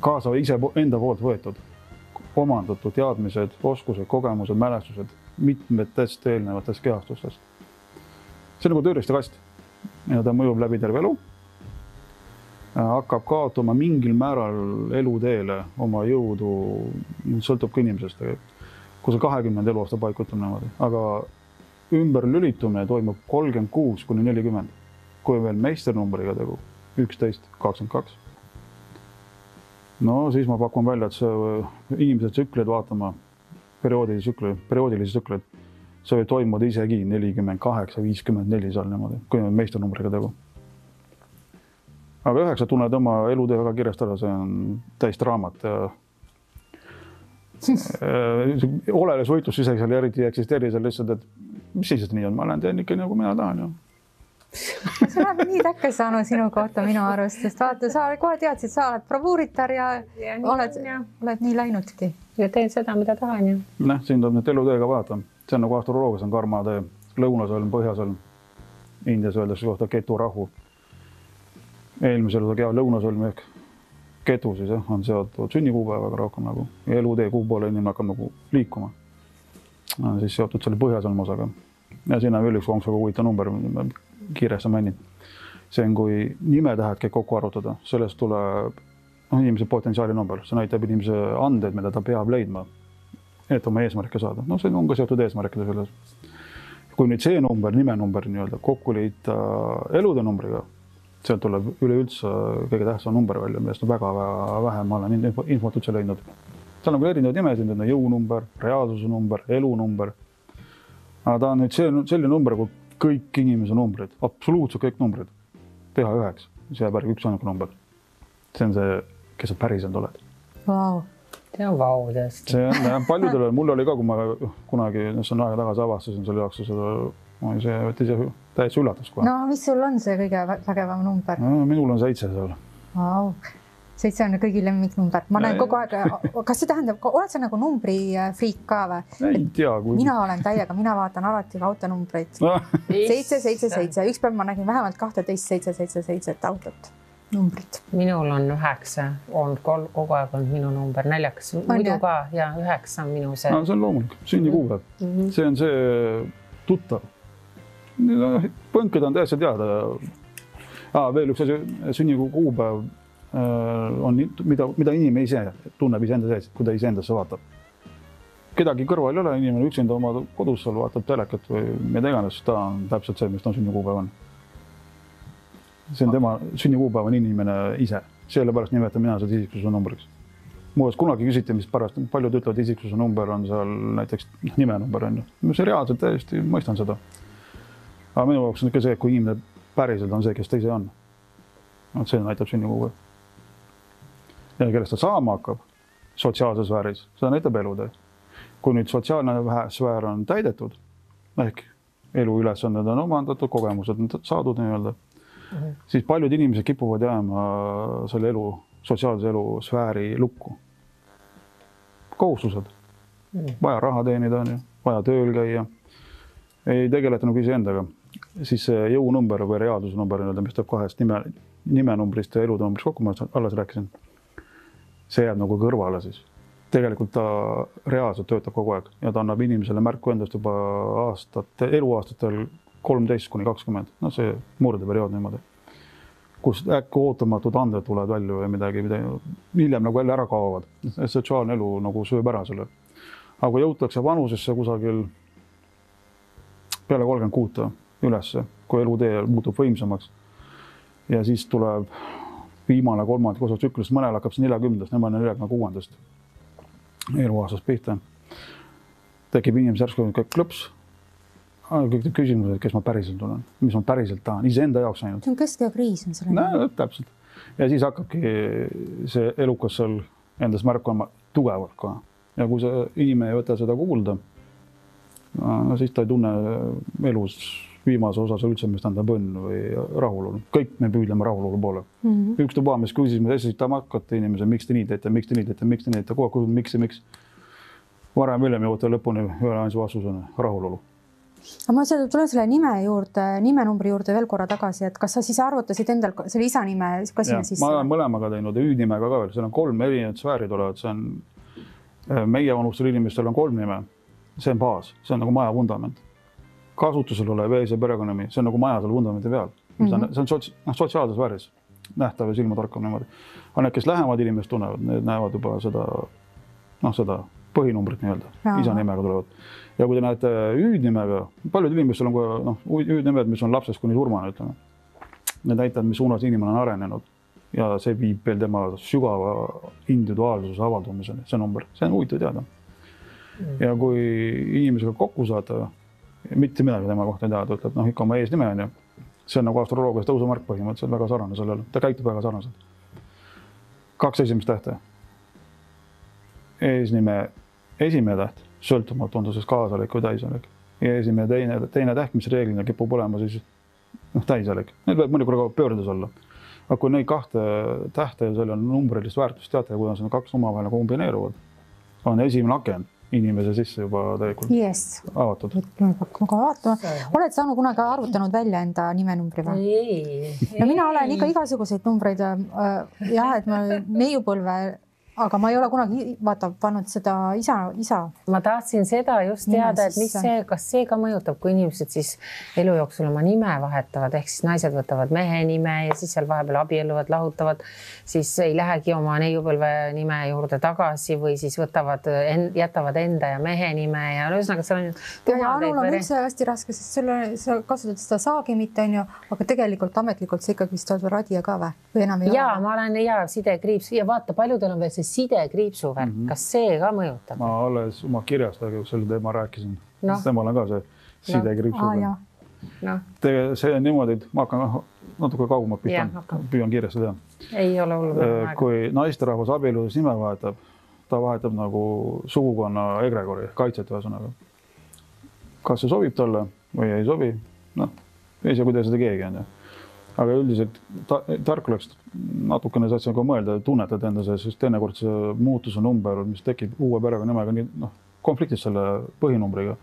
[SPEAKER 3] kaasa ise enda poolt võetud. Omandatud teadmised, oskused, kogemused, mälestused mitmetest eelnevatest kehastustest. See on nagu tööriistakast ja ta mõjub läbi terve elu. Hakkab kaotama mingil määral eluteele oma jõudu, sõltub ka inimesest, kui see 20 eluaasta paikutab niimoodi. Aga ümber lülitumine toimub 36–40, kui veel meisternumbriga tegu 11, 22. No siis ma pakun välja, et see inimesed tsükleid vaatama, perioodilisi tsükleid, see võib toimuda isegi 48-54 seal niimoodi, kui on meisternumbriga tegu. Aga 9 tunned oma elutöö väga kirjast ära, see on täist raamat ja oleles võitlus isegi seal eriti ei eksisteeri seal lihtsalt, et mis siis nii on, ma olen teen ikka nagu mina tahan ju.
[SPEAKER 2] Sa oled nii täkke saanud sinu kohta minu arust, sest vaata, sa kohe teadsid, sa oled bravuuritar ja oled nii läinudki.
[SPEAKER 1] Ja teen seda, mida tahan ju.
[SPEAKER 3] Siin tuleb nüüd elutööga vaata. See on nagu astroloogias on karmatee, lõunasõlm, põhjasõlm. Indias öeldakse kohta keturahu. Eelmisel lõunasõlm ehk ketu siis on seotud sünnikuupäevaga rohkem nagu. Ja elutee kuu poole inimene hakkab nagu liikuma. On siis seotud selle põhjasõlm osaga. Ja siin on veel üks konksuga huvitav number, kiiresti mainin. See on, kui nimetähed käib kokku arvutada, sellest tuleb inimese potentsiaali number. See näitab inimese andeid, mida ta peab leidma, et oma eesmärke saada. No see on ka seotud eesmärkide selles. Kui nüüd see number, nimenumber kokku liita elude numbriga, sealt tuleb üleüldse kõige tähtsam number välja, millest on väga vähe, ma olen infot üldse leidnud. Seal on küll erinevad nimesid, jõunumber, reaalsuse number, elunumber. Aga ta on nüüd selline number, kui kõik inimese numbrid, absoluutselt kõik numbrid, teha 9, see jääb üks ainuke number. See on see, kes sa päriselt oled.
[SPEAKER 2] Vau.
[SPEAKER 1] See on vau tõesti.
[SPEAKER 3] See on paljudele, mul oli ka, kui ma kunagi, see on aega tagasi avastasin selle jaoks, see võttis täiesti üllatus kohe.
[SPEAKER 2] No mis sul on see kõige vägevam number?
[SPEAKER 3] Minul on 7 seal.
[SPEAKER 2] Vau. 7 on kõigi lemmiknumber. Ma näen kogu aeg, kas see tähendab, oled sa nagu numbri friik ka või?
[SPEAKER 3] Ei tea.
[SPEAKER 2] Mina olen täiega, mina vaatan alati autonumbreid. 777. Üks päev ma nägin vähemalt 12-777 autot. Numbrid.
[SPEAKER 1] Minul on 9, on kogu aeg olnud minu number, naljakas. Muidu ka ja 9 on minu see.
[SPEAKER 3] See on loomulik, sünnikuupäev. See on see tuttav. Põnked on täiesti teada. Veel üks asi, sünnikuupäev on, mida inimene ise tunneb iseenda sees, kui ta iseendasse vaatab. Kedagi kõrval ei ole, inimene üksinda oma kodus seal vaatab telekat või mida iganes, ta on täpselt see, mis ta sünnikuupäev on. See on tema sünnikuupäev on inimene ise. Sellepärast nimetan mina seda isiksuse numbriks. Muudes kunagi küsiti, mis pärast paljud ütlevad, isiksuse number on seal näiteks nimenumber on ju. See reaalselt täiesti mõistan seda. Aga minu jaoks on ikka see, kui inimene päriselt on see, kes ta ise on. See näitab sünnikuupäev. Ja kellest ta saama hakkab sotsiaalses sfääris, seda näitab elutee. Kui nüüd sotsiaalne sfäär on täidetud, ehk elu ülesanded on omandatud, kogemused on saadud nii-öelda, siis paljud inimesed kipuvad jääma selle elu, sotsiaalse elu sfääri lukku. Kohustused. Vaja raha teenida on ju, vaja tööl käia. Ei tegeleta nagu iseendaga. Siis see jõunumber või reaalsuse number, mis teeb kahest nimenumbrist ja elunumbrist kokku, ma alles rääkisin. See jääb nagu kõrvale siis. Tegelikult ta reaalselt töötab kogu aeg ja ta annab inimesele märku endast juba eluaastatel 13-20. No see murdeperiood niimoodi. Kus äkki ootamatud anded tulevad välja või midagi hiljem nagu jälle ära kaovad. Sotsiaalne elu nagu sööb ära selle. Aga kui jõutakse vanusesse kusagil peale 36 ülesse, kui elutee muutub võimsamaks ja siis tuleb viimane kolmandik osa tsüklist, mõnel hakkab see 40-st, nemad on 46-st eluaastast pihta. Tekib inimese järsku klõps, kõik küsimused, kes ma päriselt olen, mis ma päriselt tahan, iseenda jaoks ainult.
[SPEAKER 2] See on keskeakriis on selle.
[SPEAKER 3] No, täpselt. Ja siis hakkabki see elukas seal endas märkama tugevalt ka. Ja kui see inimene ei võta seda kuulda, no siis ta ei tunne elus viimase osas üldse, mis tähendab õnn või rahulolu. Kõik me püüdleme rahulolu poole. Üks tuba, mis küsis, me esitame hakkate inimese, miks te nii teete, miks te nii teete, miks te nii teete, kogu aeg, miks. Varem hiljem jõuate lõpuni ühe ainsa vastusena rahulolu.
[SPEAKER 2] Aga ma tulen selle nimenumbri juurde veel korra tagasi, et kas sa siis arvutasid endal selle isa nime, kas sinna sisse?
[SPEAKER 3] Ma olen mõlemaga teinud ja hüüdnimega ka veel. Seal on 3 erinevad sfäärid olevad. See on, meie vanustel inimestel on 3 nime. See on baas, see on nagu maja vundament. Kasutusel olev ees ja perekonnami, see on nagu maja seal vundamenti peal. See on sotsiaalses vääris, nähtav ja silma tarkam niimoodi. Aga need, kes lähemad inimesed tunnevad, need näevad juba seda põhinumbrit nii-öelda, isa nimega tulevad. Ja kui te näete hüüdnimega, paljud inimestel on hüüdnimed, mis on lapsest kuni surmane, ütleme. Need näitavad, mis suunas inimene on arenenud ja see viib veel tema sügava individuaalsuse avaldumiseni, see number. See on huvitav teada. Ja kui inimesega kokku saada, mitte midagi tema kohta ei teha, ta ütleb, ikka oma eesnime on ju. See on nagu astroloogias tõusumärk põhimõtteliselt väga sarnane sellele. Ta käitub väga sarnaselt. 2 esimest tähte. Eesnime esimene täht, sõltumatu on ta siis kaasalik või täisalik. Ja esimene teine täht, mis reeglina kipub olema siis täisalik. Need võib mõnikord pöördes olla. Aga kui neid 2 tähte ja selle numbrilist väärtust teate, kuidas need 2 omavahel kombineeruvad, on esimene aken inimese sisse juba täielikult avatud.
[SPEAKER 2] Oled saanud kunagi arvutanud välja enda nimenumbri või?
[SPEAKER 1] Ei.
[SPEAKER 2] No mina olen ikka igasuguseid numbreid et ma neiupõlve, aga ma ei ole kunagi pannud seda isa.
[SPEAKER 1] Ma tahtsin seda just teada, et kas see ka mõjutab, kui inimesed siis elu jooksul oma nime vahetavad, ehk siis naised võtavad mehe nime ja siis seal vahepeal abielluvad, lahutavad, siis ei lähegi oma neiupõlve nime juurde tagasi või siis jätavad enda ja mehe nime ja ühesõnaga seal on
[SPEAKER 2] ja Anul on üldse hästi raske, sest sa kasutad seda saagimit, aga tegelikult ametlikult see ikkagi vist oled radia ka või enam ei ole?
[SPEAKER 1] Jaa, ma olen sidekriips ja vaata, paljudel on veel see sidekriipsu värk, kas see ka mõjutab? Ma
[SPEAKER 3] alles oma kirjast, aga selle teema rääkisin. Temal on ka see sidekriipsu värk. See on niimoodi, et ma hakkan natuke kaugemalt püüan kiiresti teha.
[SPEAKER 1] Ei ole hullu.
[SPEAKER 3] Kui naisterahvas abielus nime vahetab, ta vahetab nagu sugukonna egregori, kaitset ühesõnaga. Kas see sobib talle või ei sobi? Ei saa, kuidas seda keegi on. aga üldiselt tark oleks natukene saad ka mõelda, tunnetad enda sees, sest teinekord see muutuse number, mis tekib uue perekonnimega, nii konfliktis selle põhinumbriga.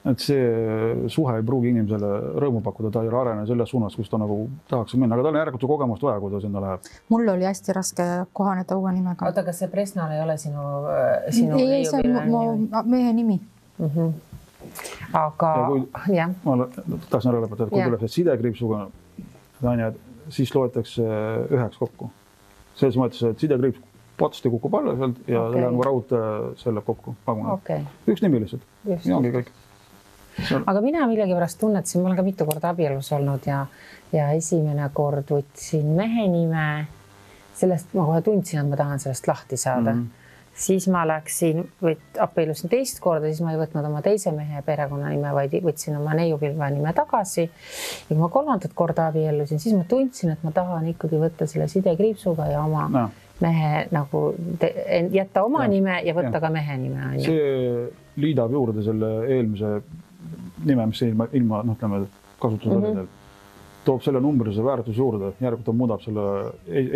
[SPEAKER 3] Et see suhe ei pruugi inimesele rõõmu pakkuda, ta ei arene selles suunas, kus ta nagu tahaks minna, aga tal on järelikult ju kogemust vaja, kui ta sinna läheb.
[SPEAKER 2] Mul oli hästi raske kohaneda uue nimega.
[SPEAKER 1] Oota, kas see Presnal ei ole sinu
[SPEAKER 2] ei, see on mu mehe nimi.
[SPEAKER 1] Aga jah.
[SPEAKER 3] Ma tahtsin ära lõpetada, kui tuleb see sidekriipsuga, siis loetakse 9 kokku. Selles mõttes, et sidekriips potsti kukub alla sealt ja nagu raud selle kokku. Üks nimi lihtsalt. Ja ongi kõik.
[SPEAKER 1] Aga mina millegipärast tunnetasin, ma olen ka mitu korda abielus olnud ja esimene kord võtsin mehe nime. Sellest ma kohe tundsin, et ma tahan sellest lahti saada. Siis ma läksin, abiellusin teist korda, siis ma ei võtnud oma teise mehe perekonnanime, vaid võtsin oma neiupilve nime tagasi. Ja kui ma 3. korda abiellusin, siis ma tundsin, et ma tahan ikkagi võtta selle sidekriipsuga ja oma mehe nagu jätta oma nime ja võtta ka mehe nime.
[SPEAKER 3] See liidab juurde selle eelmise nime, mis ilma kasutusel toob selle numbrilise väärtuse juurde, järelikult ta muudab selle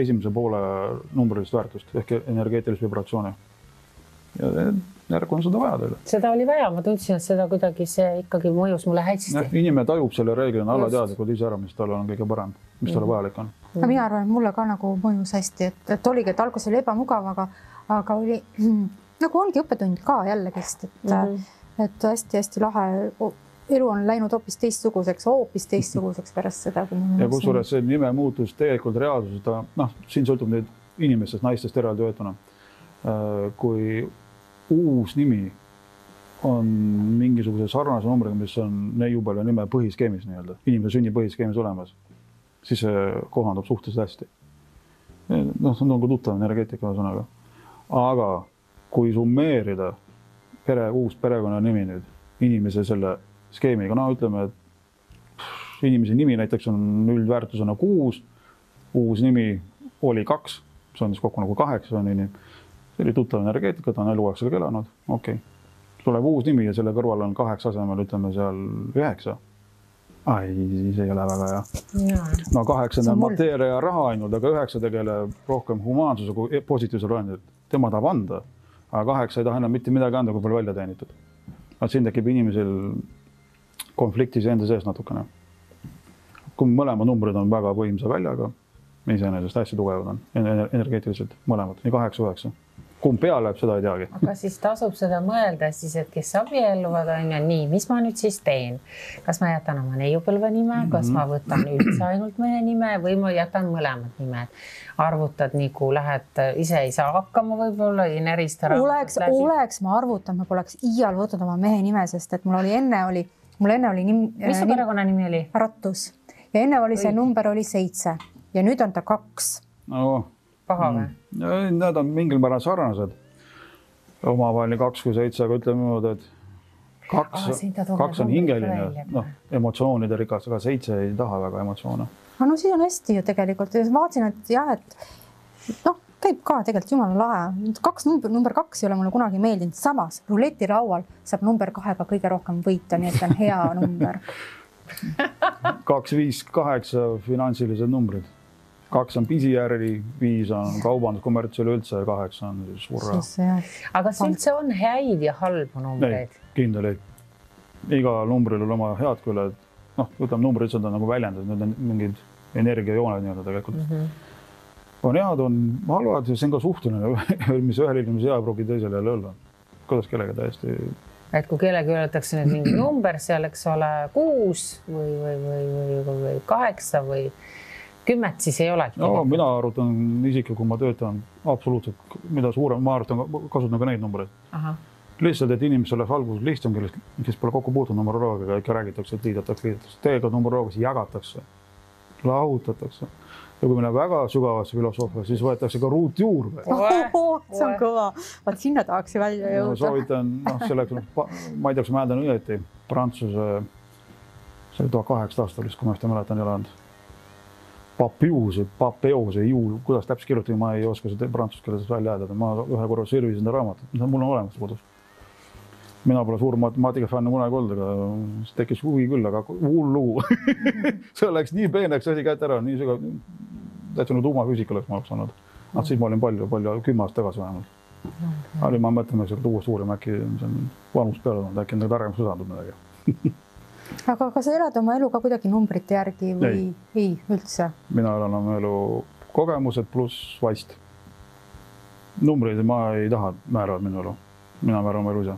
[SPEAKER 3] esimese poole numbrilist väärtust ehk energeetilist vibratsiooni. Ja järg on seda vaja teile.
[SPEAKER 1] Seda oli vaja, ma tundsin, et seda kuidagi see ikkagi mõjus mulle hästi.
[SPEAKER 3] Inimene tajub selle reeglina allateadlikult ise ära, mis tal on kõige parem, mis talle vajalik on.
[SPEAKER 2] Mina arvan, et mulle ka nagu mõjus hästi, et oligi, et alguses oli ebamugav, aga oli nagu ongi õppetund ka jällegist, et hästi-hästi lahe elu on läinud hoopis teistsuguseks pärast seda.
[SPEAKER 3] Ja kusjuures see nime muutus tegelikult reaalsuses, siin sõltub nüüd inimestest, naistest eraldi võetuna. Kui uus nimi on mingisuguse sarnase numbriga, mis on neiupilve nime põhiskeemis, inimese sünni põhiskeemis olemas, siis see kohandub suhteliselt hästi. See on nagu tuttav energeetika sõnaga. Aga kui summeerida uus perekonna nimi nüüd, inimese selle skeemiga, ütleme, et inimese nimi näiteks on üldväärtusena 6, uus nimi oli 2, see on siis kokku nagu 8, see oli tuttav energeetika, ta on eluaeg sellega elanud, tuleb uus nimi ja selle kõrval on 8 asemel, ütleme seal 9. See ei ole väga hea. 8 on mateeria ja raha ainult, aga 9 tegeleb rohkem humaansuse kui positiivsel roendil. Tema tahab anda, aga 8 ei taha enam mitte midagi anda, kui palju välja teenitud. Siin tekib inimesel konfliktis enda sees natukene. Kui mõlemad numbrid on väga võimsa väljaga, iseenesest hästi tugevad on energeetiliselt mõlemad, nii 8-9. Kumb peale läheb, seda ei teagi.
[SPEAKER 1] Aga siis tasub seda mõelda siis, et kes abielluvad on ja nii, mis ma nüüd siis teen? Kas ma jätan oma neiupilve nime, kas ma võtan üldse ainult mehe nime või ma jätan mõlemad nimed? Arvutad nagu lähed, ise ei saa hakkama võib-olla, ei närista
[SPEAKER 2] raamatut läbi. Oleks ma arvutanud, ma poleks iial võtnud oma mehe nime, sest et mul enne oli
[SPEAKER 1] mis su perekonna nimi oli?
[SPEAKER 2] Rattus. Ja enne oli see number oli 7 ja nüüd on ta 2.
[SPEAKER 1] Paha või?
[SPEAKER 3] Need on mingil määral sarnased. Omavaheline 2 kui 7, aga ütleme niimoodi, et 2 on hingeline, emotsioonide rikas, aga 7 ei taha väga emotsioone.
[SPEAKER 2] No siis on hästi ju tegelikult. Vaatasin, et jah, et käib ka tegelikult jumala lahe. Number 2 ei ole mulle kunagi meeldinud. Samas ruletiraual saab number 2-ga kõige rohkem võita, nii et on hea number.
[SPEAKER 3] 2, 5, 8 finantsilised numbrid. 2 on pisijärgi, 5 on kaubandus, kommerts üleüldse ja 8 on surra.
[SPEAKER 1] Aga kas üldse on häid ja halbu numbreid?
[SPEAKER 3] Kindel ei. Iga numbril on oma head küljed. Ütleme, numbrid on nagu väljendad, need on mingid energiajooned nii-öelda tegelikult. On head, on halvad ja see on ka suhteline, mis ühel inimese hea pruugi teisele jälle olla. Kuidas kellegi täiesti...
[SPEAKER 1] Et kui kellegi öeldakse nüüd mingi number, seal eks ole 6 või 8 või 10, siis ei olegi.
[SPEAKER 3] Mina arvutan isiklikult, kui ma töötan absoluutselt, mida suurem, ma arvutan, kasutan ka neid numbreid. Lihtsalt, et inimesel oleks alguses lihtsam, kes pole kokku puutunud numeroloogiga, ikka räägitakse, et liidetakse. Tegelikult numeroloogias jagatakse, lahutatakse. Ja kui meil on väga sügavasse filosoofia, siis võetakse ka ruut juurde.
[SPEAKER 2] See on kõva. Vaat sinna tahaks ju välja jõuda.
[SPEAKER 3] Soovitan, selleks, ma ei tea, kas ma hääldan õieti, Prantsuse, see oli 18 aastalist, kui ma seda mäletan elanud. Papeose, juul, kuidas täpselt kirjutada, ma ei oska seda prantsuse keeles välja hääldada. Ma ühe korra sirvisin raamatut, mul on olemas kodus. mina pole suur matemaatika fänn kunagi olnud, aga siis tekkis huvi küll, aga hull lugu. See läks nii peeneks asi kätte ära, nii sügav, täitsa nagu tuumafüüsika oleks ma oleks olnud. Siis ma olin palju 10 aastat tagasi vähemalt. Ma mõtlen, et uuest uurima äkki vanus peale on, äkki targemaks usandub midagi.
[SPEAKER 2] Aga kas sa elad oma elu ka kuidagi numbrite järgi või ei üldse?
[SPEAKER 3] Mina elan oma elu kogemused pluss vaist. Numbreid ma ei taha määravad minu elu. Mina määran oma elu ise.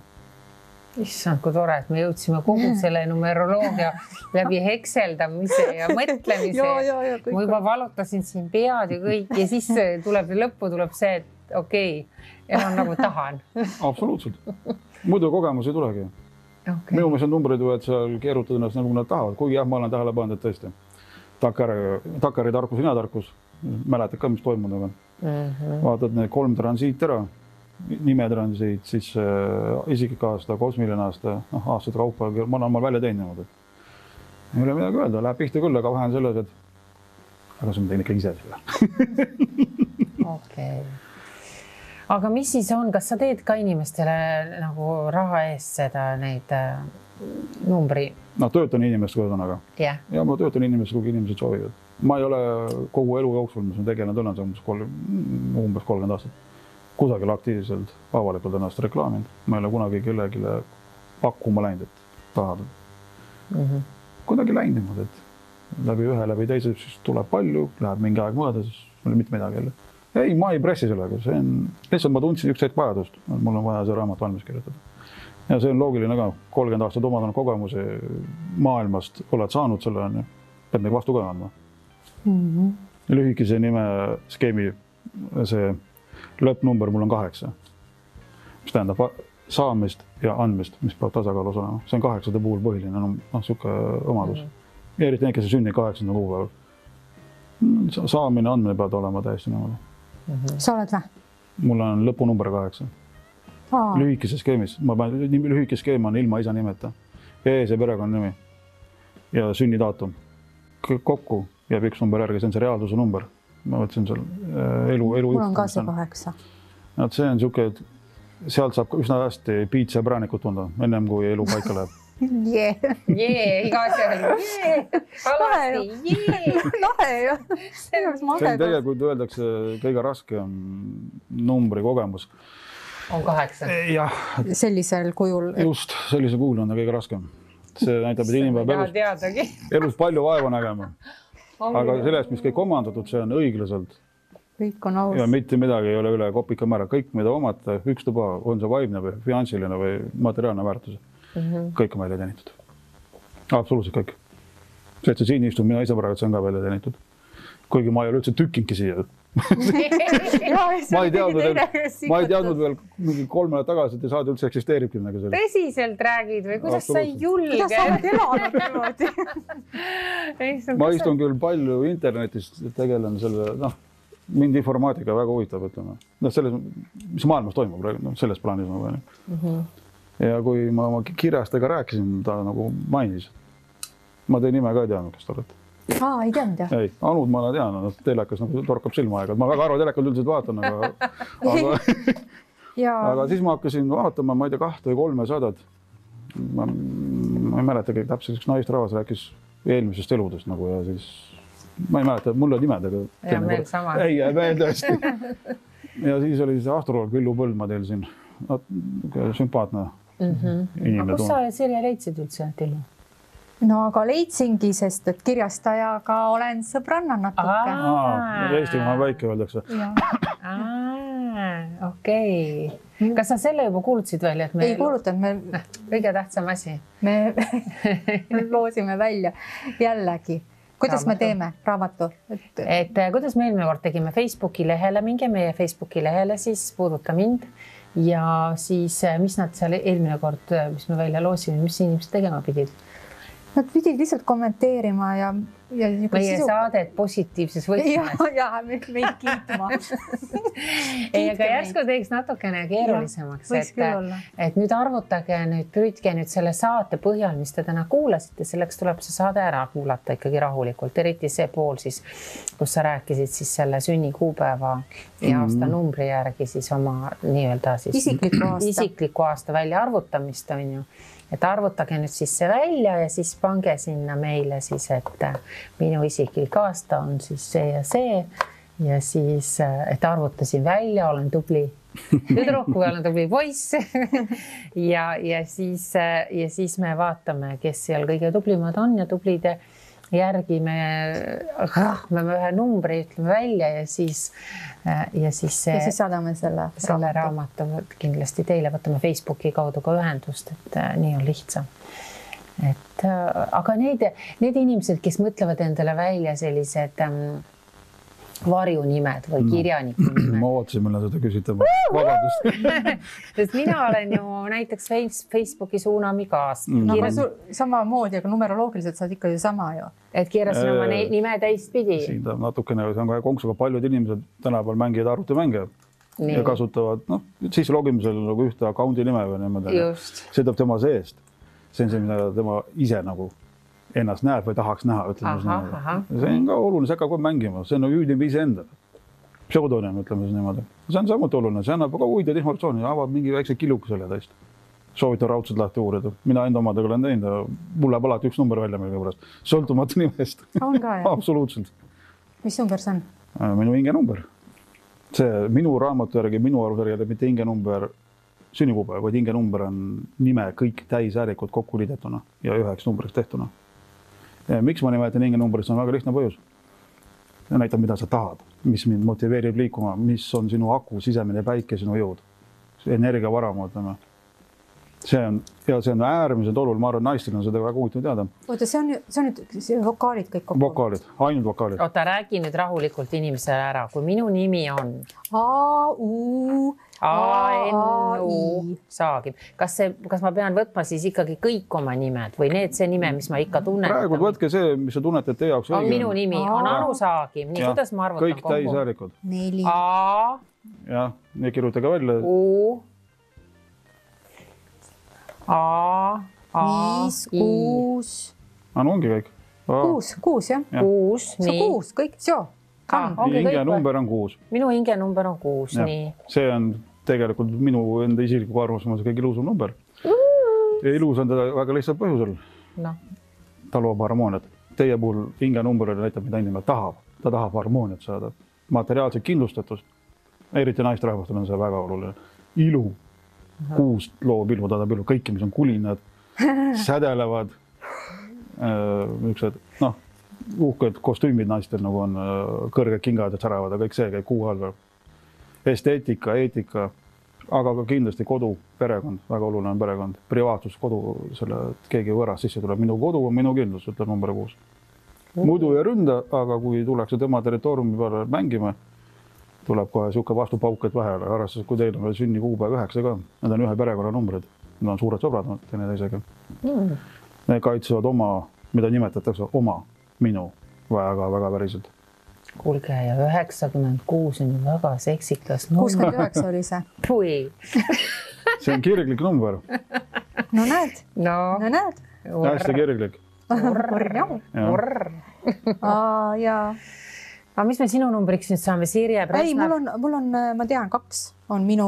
[SPEAKER 1] Issand, kui tore, et me jõudsime kogu selle numeroloogia läbi hekseldamise ja mõtlemise. Ma juba valutasin siin pead ja kõik ja siis lõppu tuleb see, et okei, elan nagu tahan.
[SPEAKER 3] Absoluutselt. Muidu kogemus ei tulegi. Minu meelest on numbrid võivad seal keerutada ennast nagu nad tahavad, kuigi jah, ma olen tähele pannud, et tõesti. Takkari tarkus, ina tarkus. Mäletad ka, mis toimunud on. Vaatad need 3 transiit ära. Nimetransiit, siis isiklik aasta, kosmiline aasta, aastate kaupa, ma olen välja teinud. Ei ole midagi öelda, läheb pihta küll, aga vahe on selles, et aga see on teine ikka ise selle.
[SPEAKER 1] Okei. Aga mis siis on, kas sa teed ka inimestele nagu raha eest seda neid numbri?
[SPEAKER 3] No töötan inimestega ühesõnaga. Ja ma töötan inimestega, kui inimesed soovivad. Ma ei ole kogu elu jooksul, mis on tegelenud umbes 30 aastat. Kusagil aktiivselt avalikult ennast reklaaminud. Ma ei ole kunagi kellegi pakkuma läinud, et tahad. Kuidagi läinud niimoodi, et läbi teise siis tuleb palju, läheb mingi aeg mõõda, siis mul mitte midagi jälle. Ei, ma ei pressi sellega, see on, lihtsalt ma tundsin üks hetk vajadust, mul on vaja see raamat valmis kirjutada. Ja see on loogiline ka, 30 aastat omandanud kogemuse maailmast oled saanud selle, pead nagu vastu ka andma. Lühikese nime skeemi see lõppnumber mul on 8, mis tähendab saamist ja andmist, mis peab tasakaalus olema. See on 8 puhul põhiline, siuke omadus. Ja eriti need, kes on sündinud 8. kuupäeval. Saamine, andmine peab olema täiesti niimoodi.
[SPEAKER 2] Sa oled või?
[SPEAKER 3] Mul on lõpunumber 8. Lühikese skeemis. Lühike skeem on ilma isa nimeta. See perekonna nimi ja sünnidaatum. Kokku jääb üks number järgi, see on see reaalsuse number. Ma võtsin seal elu.
[SPEAKER 2] Mul on ka see 8.
[SPEAKER 3] See on siuke, et sealt saab üsna hästi piitsa ja präänikut tunda, ennem kui elu paika läheb.
[SPEAKER 1] Iga asja. Alasti.
[SPEAKER 2] Lahe ju.
[SPEAKER 3] See on tegelikult öeldakse kõige raskem numbri kogemus.
[SPEAKER 1] On 8.
[SPEAKER 3] Jah.
[SPEAKER 2] Sellisel kujul.
[SPEAKER 3] Just, sellisel kujul on ta kõige raskem. See näitab, et inimene peab elus palju vaeva nägema. Aga sellest, mis kõik omandatud, see on õiglaselt.
[SPEAKER 2] Kõik on aus.
[SPEAKER 3] Ja mitte midagi ei ole üle kopika määra. Kõik, mida omata, ükstuba, on see vaimne või finantsiline või materiaalne väärtus. Kõik on välja teenitud. Absoluutselt kõik. See, et see siin istub, mina ise praegu, see on ka välja teenitud. Kuigi ma ei ole üldse tükkingi siia. Ma ei teadnud veel mingi 3 nädalat tagasi, et saad üldse eksisteeribki midagi selle.
[SPEAKER 1] Tõsiselt räägid või kuidas sa ei julge?
[SPEAKER 2] Kuidas sa oled elanud niimoodi?
[SPEAKER 3] Ma istun küll palju internetist, tegelen selle, mind informaatika väga huvitab, ütleme. Selles, mis maailmas toimub, selles plaanis. Ja kui ma oma kirjastega rääkisin, ta nagu mainis. Ma teie nime ka ei teadnud, kes te olete.
[SPEAKER 2] Ei teadnud, jah?
[SPEAKER 3] Ei, Anud ma olen teadnud, telekas torkab silma aega. Ma väga arva telekal üldiselt vaatan, aga siis ma hakkasin vaatama, ma ei tea, 2 või 3 sadat. Ma ei mäleta kõik täpselt, üks naistrahvas rääkis eelmisest eludest nagu ja siis ma ei mäleta, mul on nimed, aga
[SPEAKER 1] ja meil sama.
[SPEAKER 3] Ei, meil tõesti. Ja siis oli see astroloog Villu Põldma teil siin. Sümpaatne inimene.
[SPEAKER 1] Aga kus sa Sirje leidsid üldse, Tillu?
[SPEAKER 2] No aga leidsingi, sest et kirjastajaga olen sõbranna natuke.
[SPEAKER 3] Eestimaa väike öeldakse.
[SPEAKER 1] Okei. Kas sa selle juba kuulutasid välja?
[SPEAKER 2] Ei kuulutanud.
[SPEAKER 1] Kõige tähtsam asi.
[SPEAKER 2] Me loosime välja jällegi. Kuidas me teeme raamatu?
[SPEAKER 1] Et kuidas me eelmine kord tegime Facebooki lehele, minge meie Facebooki lehele, siis puuduta mind. Ja siis, mis nad seal eelmine kord, mis me välja loosime, mis inimesed tegema pidid?
[SPEAKER 2] Nad pidid lihtsalt kommenteerima ja
[SPEAKER 1] meie saadet positiivses võtmes.
[SPEAKER 2] Ja meid kiitma.
[SPEAKER 1] Ei, aga järsku teeks natukene keerulisemaks, et nüüd arvutage, püüdke nüüd selle saate põhjal, mis te täna kuulasite, selleks tuleb see saade ära kuulata ikkagi rahulikult, eriti see pool siis, kus sa rääkisid siis selle sünnikuupäeva ja aasta numbri järgi siis oma nii-öelda siis isikliku aasta välja arvutamist on ju. Et arvutage nüüd siis see välja ja siis pange sinna meile siis, et minu isiklik aasta on siis see ja siis, et arvutasin välja, olen tubli tüdruk või olen tubli poiss ja siis me vaatame, kes seal kõige tublimad on ja tublide järgi me ühe numbri ütleme välja ja siis
[SPEAKER 2] saadame selle
[SPEAKER 1] raamatu kindlasti teile, võtame Facebooki kaudu ka ühendust, et nii on lihtsam. Aga need inimesed, kes mõtlevad endale välja sellised varjunimed või kirjaniku nimed.
[SPEAKER 3] Ma ootasin, millal seda küsitama. Vabandust.
[SPEAKER 1] Sest mina olen ju näiteks Facebooki Suunami kaas.
[SPEAKER 2] Sama moodi, aga numeroloogiliselt saad ikka ju sama ju.
[SPEAKER 1] Et keerasin oma nime teistpidi.
[SPEAKER 3] Siin ta natukene, see on ka konksuga paljud inimesed tänapäeval mängivad arvutimänge ja kasutavad siis logimisel nagu ühte account'i nime või niimoodi. See tuleb tema seest. See on see, mida tema ise nagu ennast näeb või tahaks näha, ütleme. See on ka oluline, see hakkab kohe mängima, see on hüüdib ise enda. Pseudonym, ütleme siis niimoodi. See on samuti oluline, see annab ka huvitavat informatsiooni, avad mingi väikse killuku selle täist. Soovitan raudselt lahti uurida. Mina enda omadega olen teinud, mul läheb alati üks number välja meile pärast. Sõltumatu nimest.
[SPEAKER 2] On ka, jah?
[SPEAKER 3] Absoluutselt.
[SPEAKER 2] Mis number see on?
[SPEAKER 3] Minu hinge number. See minu raamatu järgi, minu arvusjärgi, mitte hinge number sünnikuupäev, vaid hinge number on nime kõik täisäärikud kokku liidetuna ja üheks numbriks tehtuna. Miks ma nimetan hinge numbrit, see on väga lihtne põhjus. Näitab, mida sa tahad, mis mind motiveerib liikuma, mis on sinu aku, sisemine päike, sinu jõud. Energiavaram, ütleme. See on äärmiselt oluline, ma arvan, naistel on seda väga huvitav teada.
[SPEAKER 2] Oota, see on nüüd vokaalid kõik kokku?
[SPEAKER 3] Vokaalid, ainult vokaalid.
[SPEAKER 1] Oota, räägi nüüd rahulikult inimesele ära, kui minu nimi on A-N-U saagib. Kas ma pean võtma siis ikkagi kõik oma nimed või see nime, mis ma ikka tunnen?
[SPEAKER 3] Praegu võtke see, mis sa tunned, et teie jaoks
[SPEAKER 1] õige on. Minu nimi on Anu Saagim. Nii, kuidas ma arvutan
[SPEAKER 3] kõik kokku? Kõik täisäärikud.
[SPEAKER 2] 4.
[SPEAKER 1] A.
[SPEAKER 3] Jah, nii kirjutage välja.
[SPEAKER 1] U. A.
[SPEAKER 2] 5, 6.
[SPEAKER 3] No ongi kõik.
[SPEAKER 2] 6, jah.
[SPEAKER 1] 6, nii.
[SPEAKER 2] 6, kõik, joo.
[SPEAKER 3] Hinge number on 6.
[SPEAKER 1] Minu hinge number on 6, nii.
[SPEAKER 3] See on tegelikult minu enda isikliku arvamus, kõige ilusam number. Ja ilus on teda väga lihtsalt põhjusel. Ta loob harmooniat. Teie puhul hinge number näitab, mida inimene tahab. Ta tahab harmooniat saada. Materiaalset kindlustatust. Eriti naisterahvastel on see väga oluline. Ilu. 6 loob ilu, ta tahab ilu. Kõiki, mis on kulinad, sädelevad, uhked kostüümid naistel nagu on kõrged kingad ja säravad ja kõik see käib kuu all. Esteetika, eetika, aga ka kindlasti kodu, perekond, väga oluline on perekond, privaatsus, kodu, keegi võõras sisse tuleb. Minu kodu on minu kindlus, ütleb number 6. Muidu ei ründa, aga kui tullakse tema territooriumi peale mängima, tuleb kohe siuke vastupauk, et vahele. Arvestades, kui teil on veel sünnikuupäev 9 ka, need on ühe perekonna numbrid. Need on suured sõbrad, teineteisega. Need kaitsevad oma, mida nimetatakse oma, minu väga päriselt.
[SPEAKER 1] Kuulge, ja 96 on ju väga seksikas number.
[SPEAKER 2] 69 oli see.
[SPEAKER 1] Pui.
[SPEAKER 3] See on kirglik number.
[SPEAKER 2] No näed.
[SPEAKER 3] Hästi kirglik.
[SPEAKER 2] Jaa.
[SPEAKER 1] Aga mis me sinu numbriks nüüd saame? Sirje Presna?
[SPEAKER 2] Ei, mul on, ma tean, 2 on minu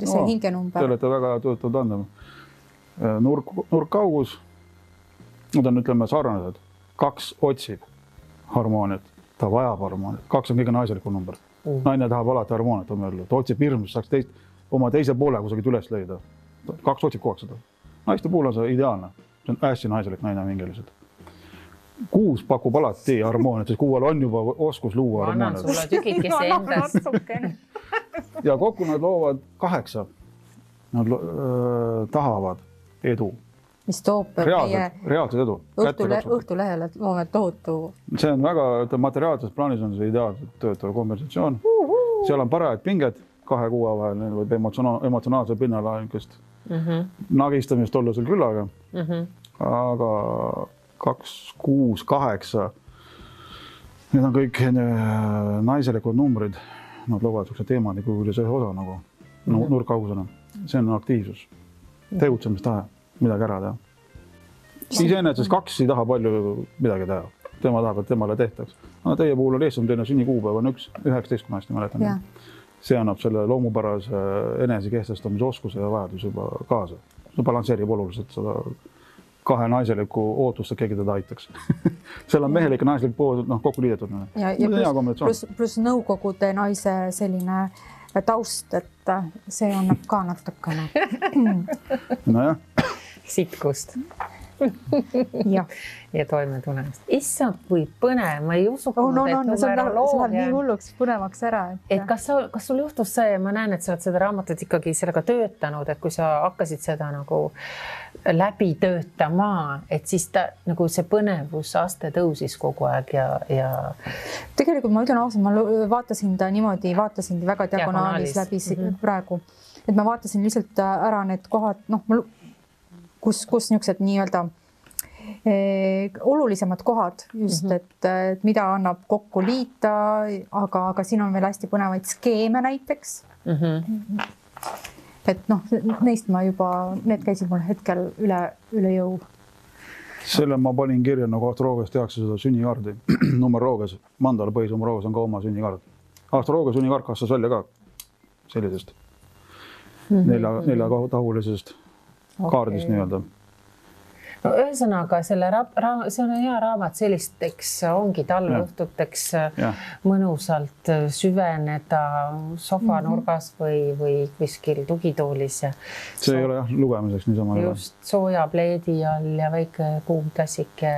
[SPEAKER 2] see hinge number.
[SPEAKER 3] Te olete väga töötanud andma. Nurk kaugus, nad on, ütleme, sarnased. 2 otsib harmooniat, ta vajab harmooniat. 2 on kõige naiselikum number. Naine tahab alati harmooniat, ta otsib hirmus, saaks oma teise poole kusagil üles leida. 2 otsib kogu aeg seda. Naiste puhul on see ideaalne. See on hästi naiselik naine mingiliselt. 6 pakub alati harmooniat, sest 6 on juba oskus luua harmooniat.
[SPEAKER 1] Annan sulle tükikese endast.
[SPEAKER 3] Ja kokku nad loovad 8. Nad tahavad edu.
[SPEAKER 2] Mis toob
[SPEAKER 3] reaalset edu.
[SPEAKER 2] Õhtulehele loome tohutu.
[SPEAKER 3] See on väga, materiaalses plaanis on see ideaalselt töötav konversatsioon. Seal on parajad pinged 2 kuue vahel, võib emotsionaalse pinnala nagistamist olla sul küllaga. Aga 2, 6, 8 Need on kõik naiselikud numbrid, nad loovad sellise teemaniku ühes osa nagu nurkaugusena. See on aktiivsus, tegutsemistahe, midagi ära teha. Iseenesest 2 ei taha palju midagi teha. Tema tahab, et temale tehtaks. Aga teie puhul on eestsam teine sünnikuupäev on 19, kui ma hästi mäletan. See annab selle loomupärase enese kehtestamise oskuse ja vajadus juba kaasa. See balansseerib oluliselt seda 2 naiseliku ootust, et keegi teda aitaks. Seal on mehelik ja naislik pool kokku liidetud.
[SPEAKER 2] Ja plus nõukogude naise selline taust, et see annab ka natukene.
[SPEAKER 3] Nojah.
[SPEAKER 1] Sitkust. ja toime tulemist. Issand, kui põnev, ma ei usunud, et numeroloogia...
[SPEAKER 2] See läheb nii hulluks põnevaks ära.
[SPEAKER 1] Et kas sul juhtus see, ma näen, et sa oled seda raamatut ikkagi sellega töötanud, et kui sa hakkasid seda nagu läbi töötama, et siis ta nagu see põnevusaste tõusis kogu aeg ja...
[SPEAKER 2] Tegelikult ma ütlen ausalt, ma vaatasin ta niimoodi, vaatasin väga diagonaalis läbi praegu. Et ma vaatasin lihtsalt ära need kohad, kus niisugused nii-öelda olulisemad kohad just, et mida annab kokku liita, aga siin on veel hästi põnevaid skeeme näiteks. Et neist ma juba, need käisid mul hetkel üle jõu.
[SPEAKER 3] Selle ma panin kirja, nagu astroloogias tehakse seda sünnikaardi. Numeroloogias, mandala põhisnumeroloogias on ka oma sünnikaard. Astroloogia sünnikaart kastas välja ka sellisest 4-tahulisest kaardist nii-öelda.
[SPEAKER 1] No ühesõnaga, see on hea raamat sellisteks, ongi talveõhtuteks mõnusalt süveneda sofanurgas või kuskil tugitoolis.
[SPEAKER 3] See ei ole lugemiseks niisama.
[SPEAKER 1] Just sooja pleedi all ja väike kuum klassike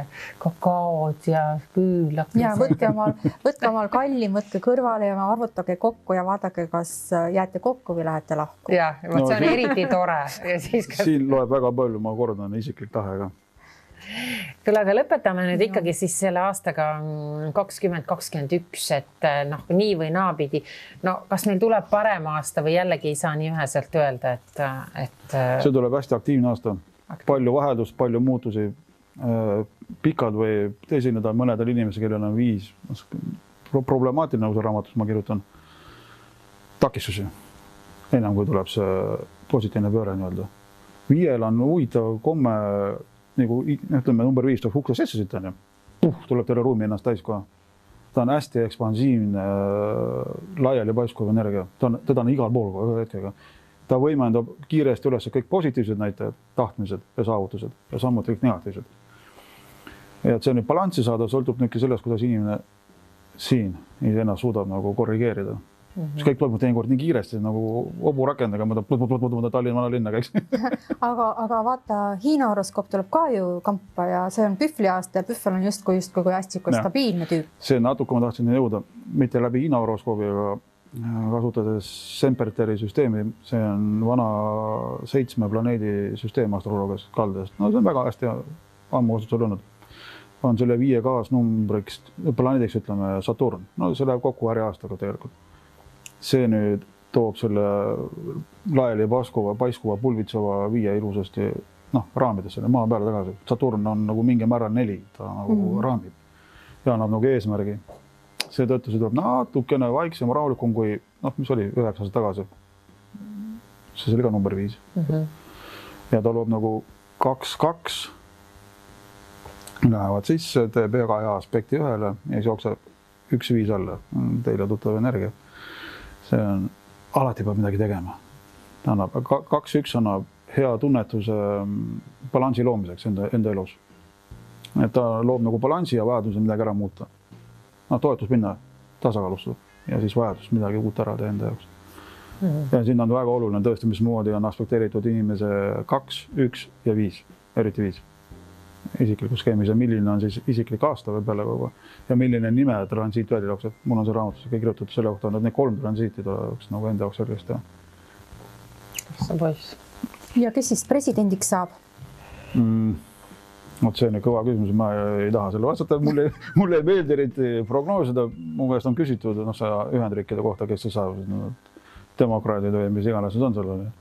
[SPEAKER 1] kakaod ja küül.
[SPEAKER 2] Ja võtke omal kallim, võtke kõrvale ja arvutage kokku ja vaadake, kas jääte kokku või lähete lahku.
[SPEAKER 1] Ja, see on eriti tore.
[SPEAKER 3] Siin loeb väga palju, ma kordan, isiklik tahe ka.
[SPEAKER 1] Küll, aga lõpetame nüüd ikkagi siis selle aastaga 2021, et nii või naapidi. Kas meil tuleb parem aasta või jällegi ei saa nii üheselt öelda, et...
[SPEAKER 3] See tuleb hästi aktiivne aasta. Palju vaheldust, palju muutusi. Pikad või esineda mõnedel inimesel, kellel on 5 problemaatiline uus raamatus, ma kirjutan takistusi. Enam kui tuleb see positiivne pööre nii-öelda. 5 on huvitav komme nagu ütleme number 5 tuleb ukse sisse siit on ju. Tuleb teile ruumi ennast täis kohe. Ta on hästi ekspansiivne, laiali paiskuv energia. Teda on igal pool kohe hetkega. Ta võimendab kiiresti üles kõik positiivsed näitajad, tahtmised ja saavutused ja samuti kõik negatiivsed. Ja et see nüüd balanssi saada, sõltub nüüd sellest, kuidas inimene siin ennast suudab nagu korrigeerida. See kõik toimub teinekord nii kiiresti nagu oburakendaga, ma Tallinna vanalinna käiks.
[SPEAKER 2] Aga vaata, Hiina horoskoop tuleb ka ju kampa ja see on pühvli aasta ja pühvel on justkui hästi stabiilne tüüp.
[SPEAKER 3] See natuke ma tahtsin jõuda, mitte läbi Hiina horoskoobi, aga kasutades Semperteri süsteemi. See on vana 7 planeedi süsteem astroloogias kaldest. See on väga hästi ammu kasutusel olnud. On selle 5 kaasnumbriks, planeediks ütleme Saturn. See läheb kokku äri aastaga tegelikult. See nüüd toob selle laiali paiskuva pulvitseva 5 ilusasti raamidesse, maa peale tagasi. Saturn on nagu mingi määral 4, ta nagu raamib ja annab nagu eesmärgi. Seetõttu see tuleb natukene vaiksem, rahulikum kui, mis oli 9 aastat tagasi. See oli ka number 5. Ja ta loob nagu 2-2. Lähevad sisse, teeb väga hea aspekti ühele ja siis jookseb 1-5 alla. Teile tuttav energia. See on, alati peab midagi tegema. 2-1 annab hea tunnetuse balansi loomiseks enda elus. Et ta loob nagu balansi ja vajaduse midagi ära muuta. Toetus minna tasakaalustada ja siis vajadus midagi uut ära teha enda jaoks. Ja siin on väga oluline tõesti, mismoodi on aspekteeritud inimese 2, 1 ja 5, eriti 5. Isikliku skeemis ja milline on siis isiklik aasta või peale kogu ja milline nime transiit välja jookseb. Mul on see raamatus kõik kirjutatud selle kohta, et need 3 transiiti oleks nagu enda jaoks selgest teha.
[SPEAKER 1] See poiss.
[SPEAKER 2] Ja kes siis presidendiks saab?
[SPEAKER 3] See on kõva küsimus, ma ei taha selle vastata. Mulle ei meeldi eriti prognoosida. Mu käest on küsitud Ühendriikide kohta, kes see saab. Demokraadid või mis iganes need on sellele.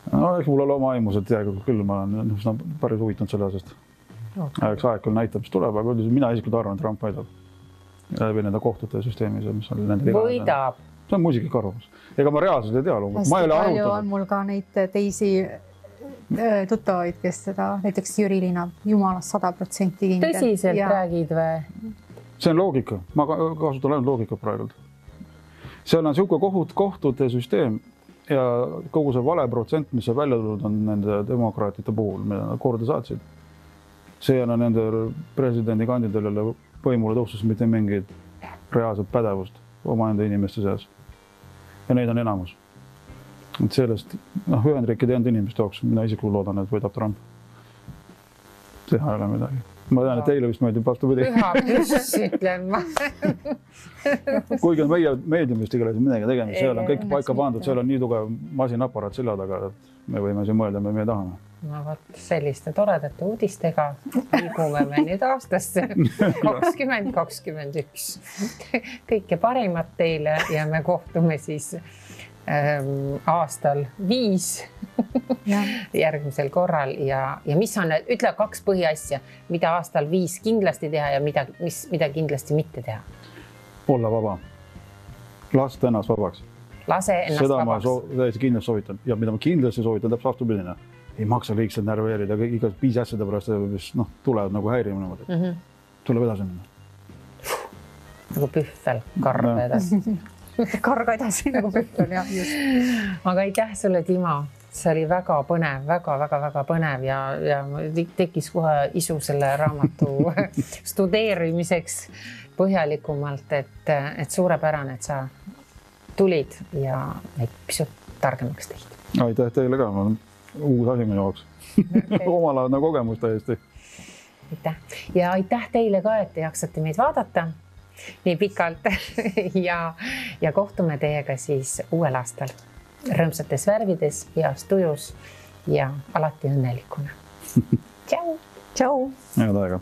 [SPEAKER 3] Eks mul ole oma aimus, et küll ma olen päris huvitanud selle asjast. Eks aeg küll näitab, mis tuleb, aga mina isiklikult arvan, et Trump võidab. läbi nende kohtute süsteemis, mis on nende
[SPEAKER 1] võidab.
[SPEAKER 3] See on muisiklik arvamus. Ega ma reaalselt ei tea loomulikult. Ma ei ole
[SPEAKER 2] arvutanud. On mul ka neid teisi tuttavaid, kes seda, näiteks Jüri Liina, jumalast 100% kindel.
[SPEAKER 1] Tõsiselt räägid või?
[SPEAKER 3] See on loogika. Ma kasutan ainult loogika praegu. Seal on siuke kohtute süsteem ja kogu see vale protsent, mis see välja tulnud on nende demokraatide puhul, mida nad korda saatsid. See on nende presidendikandidaadile võimule tõustus mitte mingit reaalset pädevust omaenda inimeste seas. Ja neid on enamus. Et sellest, Ühendriikide enda inimeste jaoks, mina isiklikult loodan, et võidab Trump. Teha ei ole midagi. Ma tean, et teile vist meeldib vastupidi.
[SPEAKER 1] Püha püss, ütlen ma.
[SPEAKER 3] Kuigi on meie meediumist igalesid midagi tegemist, seal on kõik paika pandud, seal on nii tugev masinaparaat selja taga, et me võime siin mõelda, me tahame.
[SPEAKER 1] No võt, selliste toredate uudistega liigume me nüüd aastasse 2021. Kõike parimat teile ja me kohtume siis aastal 5 järgmisel korral ja mis on, ütle 2 põhiasja, mida aastal 5 kindlasti teha ja mida kindlasti mitte teha.
[SPEAKER 3] Olla vaba. Lasta ennast vabaks.
[SPEAKER 1] Lase ennast
[SPEAKER 3] seda
[SPEAKER 1] vabaks.
[SPEAKER 3] Seda ma täiesti kindlasti soovitan. Ja mida ma kindlasti soovitan, täpselt vastupidine. Ei maksa liigselt närveerida, iga 5 asjade pärast, mis tulevad nagu häirimine. Tuleb edasi minna.
[SPEAKER 1] Nagu pühvel, karga edasi.
[SPEAKER 2] Karga edasi nagu pühvel, jah.
[SPEAKER 1] Aga aitäh sulle, Timo. See oli väga põnev, väga põnev ja tekkis kohe isu selle raamatu studeerimiseks põhjalikumalt, et suurepärane, et sa tulid ja pisut targemaks tehti.
[SPEAKER 3] Aitäh teile ka, ma olen uus asi minu jaoks. Omalaadne kogemus täiesti.
[SPEAKER 1] Aitäh. Ja aitäh teile ka, et te jaksate meid vaadata nii pikalt ja kohtume teiega siis uuel aastal. Rõõmsates värvides, heas tujus ja alati õnnelikuna. Tšau!
[SPEAKER 2] Tšau!
[SPEAKER 3] Head aega!